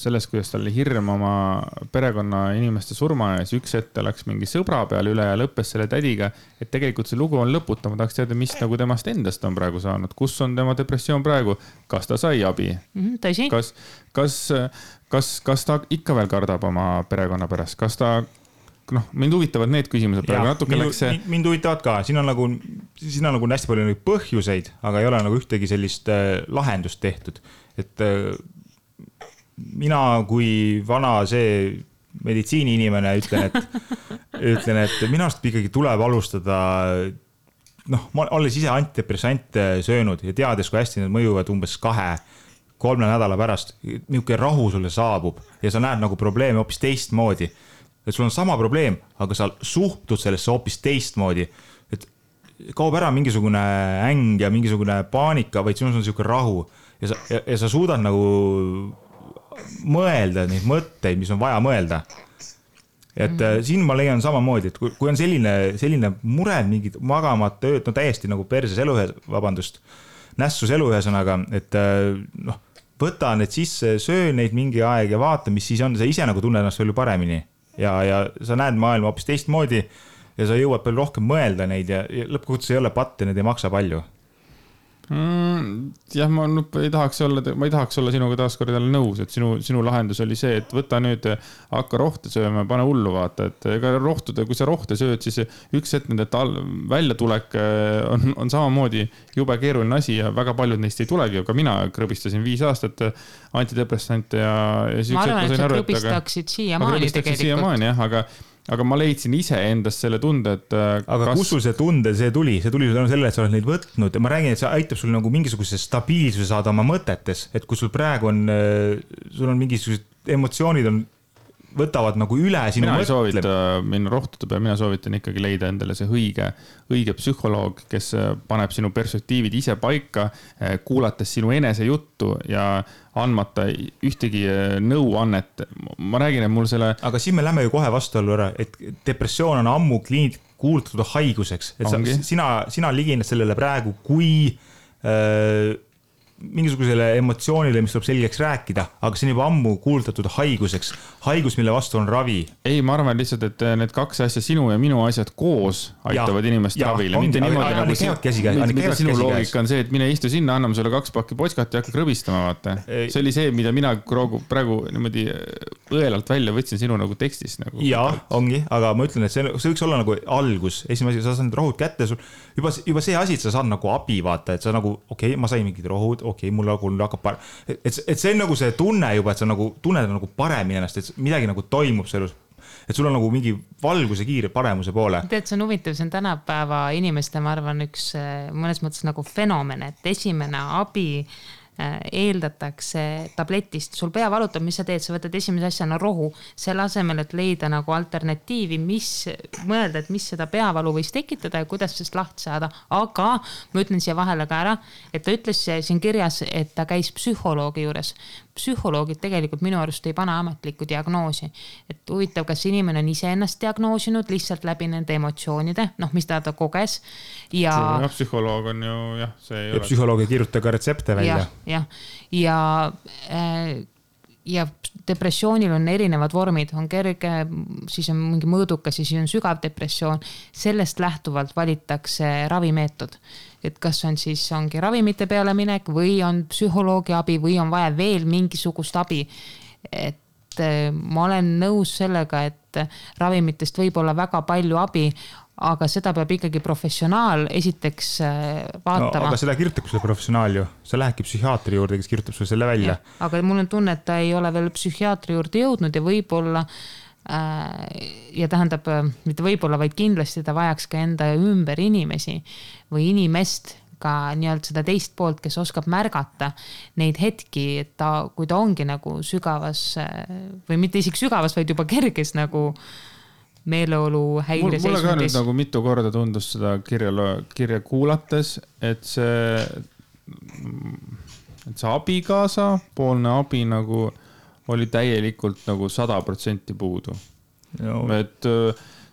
sellest, kuidas tal oli hirm oma perekonna inimeste surma ja siis üks hetk läks mingi sõbra peale üle ja lõppes selle tädiga, et tegelikult see lugu on lõputa. Ma tahaks teada, mis nagu temast endast on praegu saanud, kus on tema depressioon praegu, kas ta sai abi, kas ta ikka veel kardab oma perekonna pärast, kas ta, mind huvitavad need küsimused praegu natuke läks see. Mind huvitavad ka, siin on nagu hästi palju põhjuseid, aga ei ole nagu ühtegi sellist lahendust tehtud, et mina kui vana see meditsiini-inimene ütlen, et minu arust ikkagi tuleb alustada, ma olles ise antidepressante söönud ja teades, kui hästi need mõjuvad umbes 2-3 nädala pärast, niisugune rahu sulle saabub ja sa näed nagu probleeme hoopis teistmoodi. Et sul on sama probleem, aga sa suhtud sellesse hoopis teistmoodi. Et kaob ära mingisugune äng ja mingisugune paanika, vaid sinus on niisugune rahu ja sa suudad nagu mõelda neid mõtteid, mis on vaja mõelda. Et siin ma leian samamoodi, et kui on selline mure, mingid magamata ööd, täiesti nagu perses eluühes, nässus eluühesõnaga, et võta need sisse, söö neid mingi aeg ja vaata, mis siis on, sa ise nagu tunned ennast palju paremini ja sa näed maailma hoopis teistmoodi ja sa jõuad palju rohkem mõelda neid ja lõppkokkuvõttes ei ole patt ja need ei maksa palju. Jah, ma ei tahaks olla sinuga taaskord jälle nõus, et sinu lahendus oli see, et võta nüüd, hakka rohte sööma, pane hullu vaata, et ega kui sa rohte sööd, siis üks hetk nende väljatulek on samamoodi jube keeruline asi ja väga paljud neist ei tulegi, aga mina krõbistasin 5 aastat antidepressante ja ma arvan, et sa krõbistaksid siiamaani tegelikult. Aga ma leidsin ise endast selle tunde, et aga kus sul see tunde, see tuli tänu sellele, et sa oled neid võtnud ja ma räägin, et see aitab sul nagu mingisuguse stabiilsuse saada oma mõtetes, et kui sul praegu sul on mingisugused emotsioonid võtavad nagu üle sinu mina ei soovita minna rohtuda peale, mina soovitan ikkagi leida endale see õige psühholoog, kes paneb sinu perspektiivid ise paika, kuulates sinu enese juttu ja andmata ühtegi nõuannet. Ma räägin, et mul selle... Aga siin me lähme ju kohe vastuollu ära, et depressioon on ammu kuulutatud haiguseks, et sina ligined sellele praegu kui mingisugusele emotsioonile, mis tuleb selgeks rääkida, aga see on juba ammu kuulutatud haiguseks. Haigus, mille vastu on ravi. Ei, ma arvan lihtsalt, et need 2 asja, sinu ja minu asjad koos aitavad inimest ravile. Mitte niimoodi nagu sinu loogika on see, et mine istu sinna, anname sulle 2 pakki potskat ja hakka krõbistama, vaata. See oli see, mida mina praegu niimoodi õelalt välja võtsin sinu nagu tekstis. Jaa, ongi, aga ma ütlen, et see võiks olla nagu algus. Esimene asi, sa saad need rohud kätte, juba see asi, et sa saad nagu abi, vaata, et sa nagu, okei, ma sain mingid rohud, mul hakkab et see on nagu see tunne juba, et sa nagu tunned nagu paremini ennast, et midagi nagu toimub sellus, et sul on nagu mingi valguse kiire paremuse poole. Tead, see on huvitav, see on tänapäeva inimeste, ma arvan, üks mõnes mõttes nagu fenomen, et esimene abi eeldatakse tabletist, sul pea valutab, mis sa teed, sa võtad esimese asjana rohu, selle asemel, et leida nagu alternatiivi, mõelda, et mis seda peavalu võis tekitada ja kuidas sellest lahti saada, aga ma ütlen siia vahele ka ära, et ta ütles siin kirjas, et ta käis psühholoogi juures. Psühholoogid tegelikult minu arust ei pane ametlikku diagnoosi, et huvitav, kas inimene on ise ennast diagnoosinud lihtsalt läbi nende emotsioonide, mis ta koges ja psühholoog on ju, see ei ole. Psühholoog ei kirjuta ka retsepte välja. Ja depressioonil on erinevad vormid, on kerge, siis on mingi mõõdukas, siis on sügav depressioon. Sellest lähtuvalt valitakse ravimeetod, et kas ongi ravimite peale minek või on psühholoogi abi või on vaja veel mingisugust abi. Et ma olen nõus sellega, et ravimitest võib olla väga palju abi, aga seda peab ikkagi professionaal esiteks vaatama. No, aga seda kirjutab selle professionaal ju. Sa lähedki psühhiaatri juurde, kes kirjutab sulle selle välja. Aga mul on tunne, et ta ei ole veel psühhiaatri juurde jõudnud ja võib-olla ja tähendab, mitte võib-olla, vaid kindlasti ta vajaks ka enda ümber inimesi või inimest, ka nii-öelda seda teist poolt, kes oskab märgata neid hetki, et kui ta ongi nagu sügavas või mitte isegi sügavas, vaid juba kerges nagu meeleolu häire seisundis. Mulle ka nüüd nagu mitu korda tundus seda kirja kuulates, et see abikaasa poolne abi nagu oli täielikult nagu 100% puudu. No. Et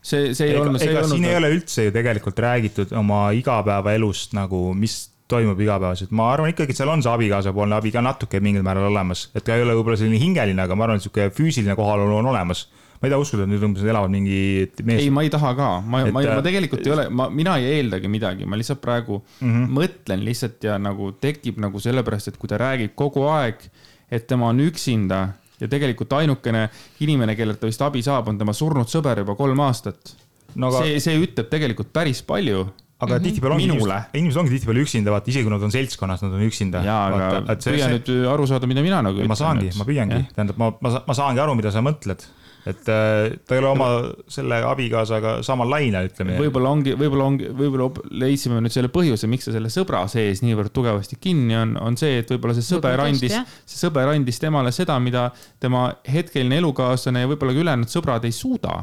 see ei olnud... Siin ei ole üldse ju tegelikult räägitud oma igapäeva elust nagu, mis toimub igapäevaselt. Ma arvan ikkagi, et seal on see abikaasa poolne abi ka natuke mingil määral olemas. Et ta ei ole võib-olla selline hingeline, aga ma arvan, et füüsiline kohalolu on olemas. Ma ei taha uskuda, et nüüd umbes elavad mingi mees. Ei, ma ei taha ka. Ma tegelikult ei ole, mina ei eeldagi midagi. Ma lihtsalt praegu mõtlen lihtsalt ja nagu tekib nagu sellepärast, et kui ta räägib kogu aeg, et tema on üksinda ja tegelikult ainukene inimene, kellelt ta vist abi saab, on tema surnud sõber juba 3 aastat. No, aga... see ütleb tegelikult päris palju. Aga inimesed ongi tihtipeale üksinda, vaata, isegi kui nad on seltskonnas, nad on üksinda. Jaa, aga püüa nüüd aru saada, mida mina nagu ütlen. Ma püüangi. Tähendab, ma saangi aru, mida sa mõtled. Et ta ei ole oma selle abikaasaga samal lainel, ütleme. Võib-olla leidsime nüüd selle põhjuse, miks ta selle sõbra sees niivõrd tugevasti kinni on see, et võib-olla see sõber andis temale seda, mida tema hetkeline elukaaslane ja võib-olla ka ülejäänud sõbrad ei suuda.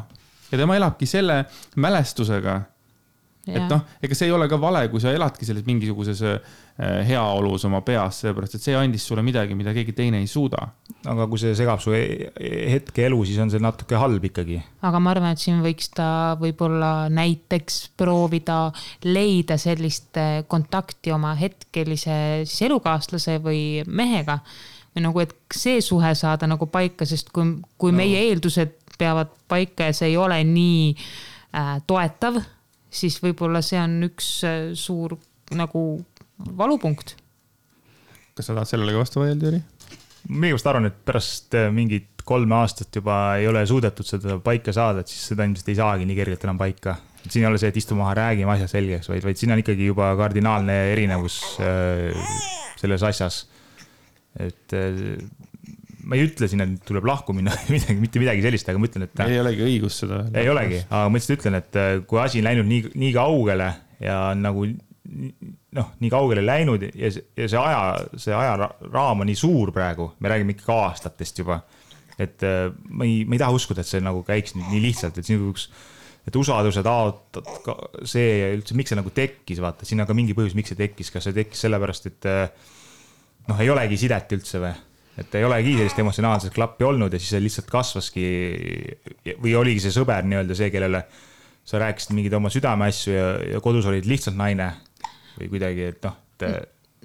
Ja tema elabki selle mälestusega. Ja. Et noh, ega see ei ole ka vale, kui sa eladki selles mingisuguses heaolus oma peas, sellepärast, et see andis sulle midagi, mida keegi teine ei suuda. Aga kui see segab su hetke elu, siis on see natuke halb ikkagi. Aga ma arvan, et siin võiks ta võib-olla näiteks proovida leida sellist kontakti oma hetkelise siis elukaaslase või mehega. Või nagu, et see suhe saada nagu paika, sest kui meie eeldused peavad paika ja see ei ole nii toetav, siis võib-olla see on üks suur nagu valupunkt. Kas sa tahad sellele vastu vaielda, Jüri? Mina just arvan, et pärast mingit 3 aastat juba ei ole suudetud seda paika saada, et siis seda ilmselt ei saagi nii kergelt enam paika. Siin ei ole see, et istu maha, räägime asja selgeks, vaid siin on ikkagi juba kardinaalne erinevus selles asjas. Et ma ei ütle siin, et tuleb lahku minna mitte midagi sellist, aga ma ütlen, et... Ei olegi õigus seda. Ei olegi, aga ma lihtsalt ütlen, et kui asi on läinud nii kaugele ja nagu nii kaugele läinud ja see ajaraam on nii suur praegu, me räägime ikkagi aastatest juba, et ma ei taha uskuda, et see nagu käiks nii lihtsalt, et usaduse see üldse, miks see nagu tekkis, vaata, siin on ka mingi põhjus, miks see tekkis, kas see tekkis sellepärast, et ei olegi sidet üldse või? Et ei olegi sellist emotsionaalset klappi olnud ja siis see lihtsalt kasvaski või oligi see sõber nii-öelda see, kellele sa rääkisid mingid oma südameasju ja kodus olid lihtsalt naine või kuidagi, et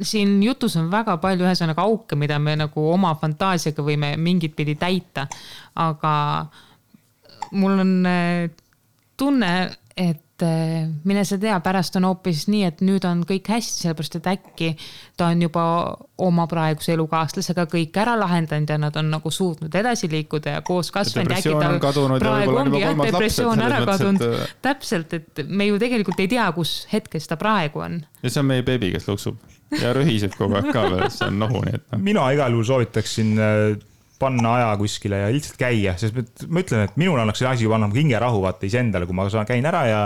Siin jutus on väga palju ühesõnaga auke, mida me nagu oma fantaasiaga võime mingit pidi täita, aga mul on tunne, et mine sa tea, pärast on hoopis nii, et nüüd on kõik hästi, sellepärast, et äkki ta on juba oma praeguse elukaaslasega kõik ära lahendanud ja nad on nagu suutnud edasi liikuda ja koos kasvanud. Praegu ongi depressioon ära kadunud. Täpselt, et me ju tegelikult ei tea, kus hetkes ta praegu on. Ja see on meie beebi, kes luksub ja rühiseb kogu aeg ka veel, see on nohuni. Mina igal juhul soovitaksin panna aja kuskile ja lihtsalt käia, sest ma ütlen, et minul annaks see asi juba annab hingerahu vaata iseendale, kui ma käin ära ja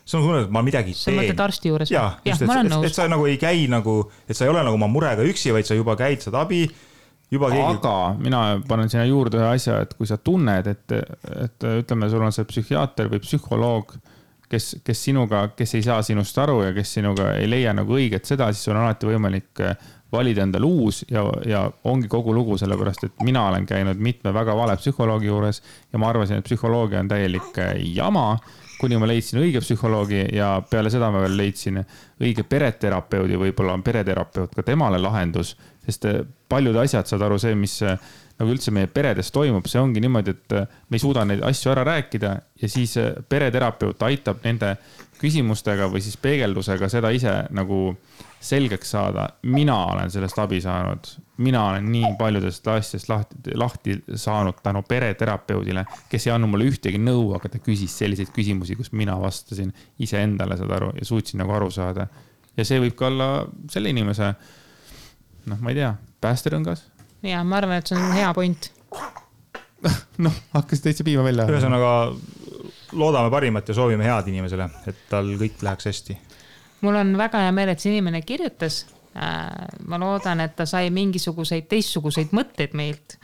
see on tunne, et ma midagi teen. Sa mõtled arsti juures? Jah, et sa nagu ei käi nagu, et sa ei ole nagu oma murega üksi, vaid sa juba käid, saad abi. Aga mina panen sinna juurde ühe asja, et kui sa tunned, et ütleme, sul on see psühhiaater või psühholoog, kes sinuga, kes ei saa sinust aru ja kes sinuga ei leia nagu õiget seda, siis sul on alati võimalik valida endale uus ja ongi kogu lugu sellepärast, et mina olen käinud mitme väga vale psühholoogi juures ja ma arvasin, et psühholoogia on täielik jama, kuni ma leidsin õige psühholoogi ja peale seda ma veel leidsin õige pereterapeudi, võib-olla on pereterapeut ka temale lahendus, sest paljud asjad saad aru see, mis nagu üldse meie peredes toimub, see ongi niimoodi, et me ei suuda neid asju ära rääkida ja siis pereterapeut aitab nende küsimustega või siis peegeldusega seda ise nagu selgeks saada. Mina olen sellest abi saanud. Mina olen nii paljudest asjast lahti saanud tänu pereterapeudile, kes ei annu mulle ühtegi nõu, aga ta küsis selliseid küsimusi, kus mina vastasin ise endale seda aru ja suutsin nagu aru saada. Ja see võib ka olla selle inimese, ma ei tea, päästerõngas. Ja ma arvan, et see on hea point. Hakkas täitsa piima välja. Ühesõnaga loodame parimat ja soovime head inimesele, et tal kõik läheks hästi. Mul on väga hea meel, et see inimene kirjutas. Ma loodan, et ta sai mingisuguseid teistsuguseid mõtteid meilt.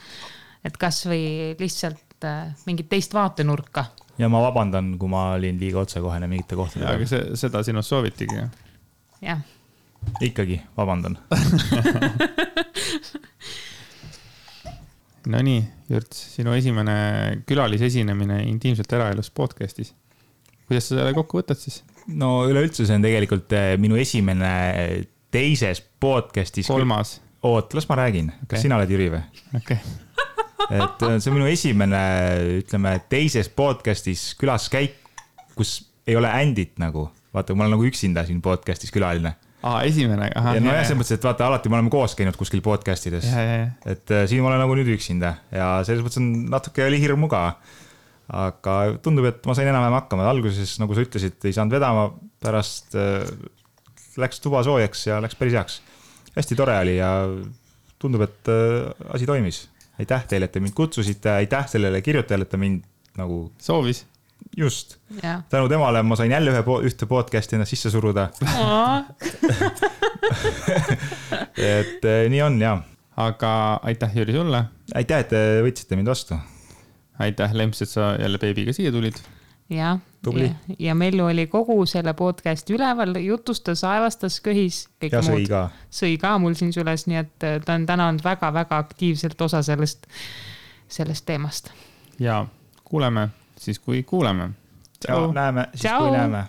Et kas või lihtsalt mingit teist vaatenurka. Ja ma vabandan, kui ma olin liiga otsekohene mingite kohtadega. Aga seda sinust soovitigi. Jah. Ikkagi, vabandan. No nii, Jürts, sinu esimene külalisesinemine Intiimselt eraelus podcastis. Kuidas sa selle kokku võtad siis? No üleüldse see on tegelikult minu esimene teises podcastis. 3. Oot, las ma räägin. Kas sina oled Jüri või? Okay. Et see on minu esimene, ütleme, teises podcastis külaskäik, kus ei ole ändit nagu. Vaata, ma olen nagu üksinda siin podcastis külaline. Esimene. Aha, ja selles mõttes, et vaata, alati me oleme koos käinud kuskil podcastides. Et siin ma olen nagu nüüd üksinda ja selles mõttes on natuke oli hirm muga. Aga tundub, et ma sain enam hakkama. Alguses, nagu sa ütlesid, ei saanud vedama, pärast läks tuba soojaks ja läks päris heaks. Hästi tore oli ja tundub, et asi toimis. Aitäh teile, et te mind kutsusite. Aitäh sellele kirjutajale, et ta mind nagu soovis. Just. Tänu temale ma sain jälle ühte podcasti ennast sisse suruda. Et nii on, jah. Aga aitäh, Jüri, sulle. Aitäh, et te võtsite mind vastu. Aitäh, Lemps, et sa jälle beebiga siia tulid. Ja, ja Mellu oli kogu selle podcasti üleval, jutustas, aevastas, köhis. Ja sõi ka. Sõi ka mul siin süles, nii et ta on täna olnud väga-väga aktiivselt osa sellest teemast. Ja kuuleme siis, kui kuuleme. Ja näeme siis, kui näeme.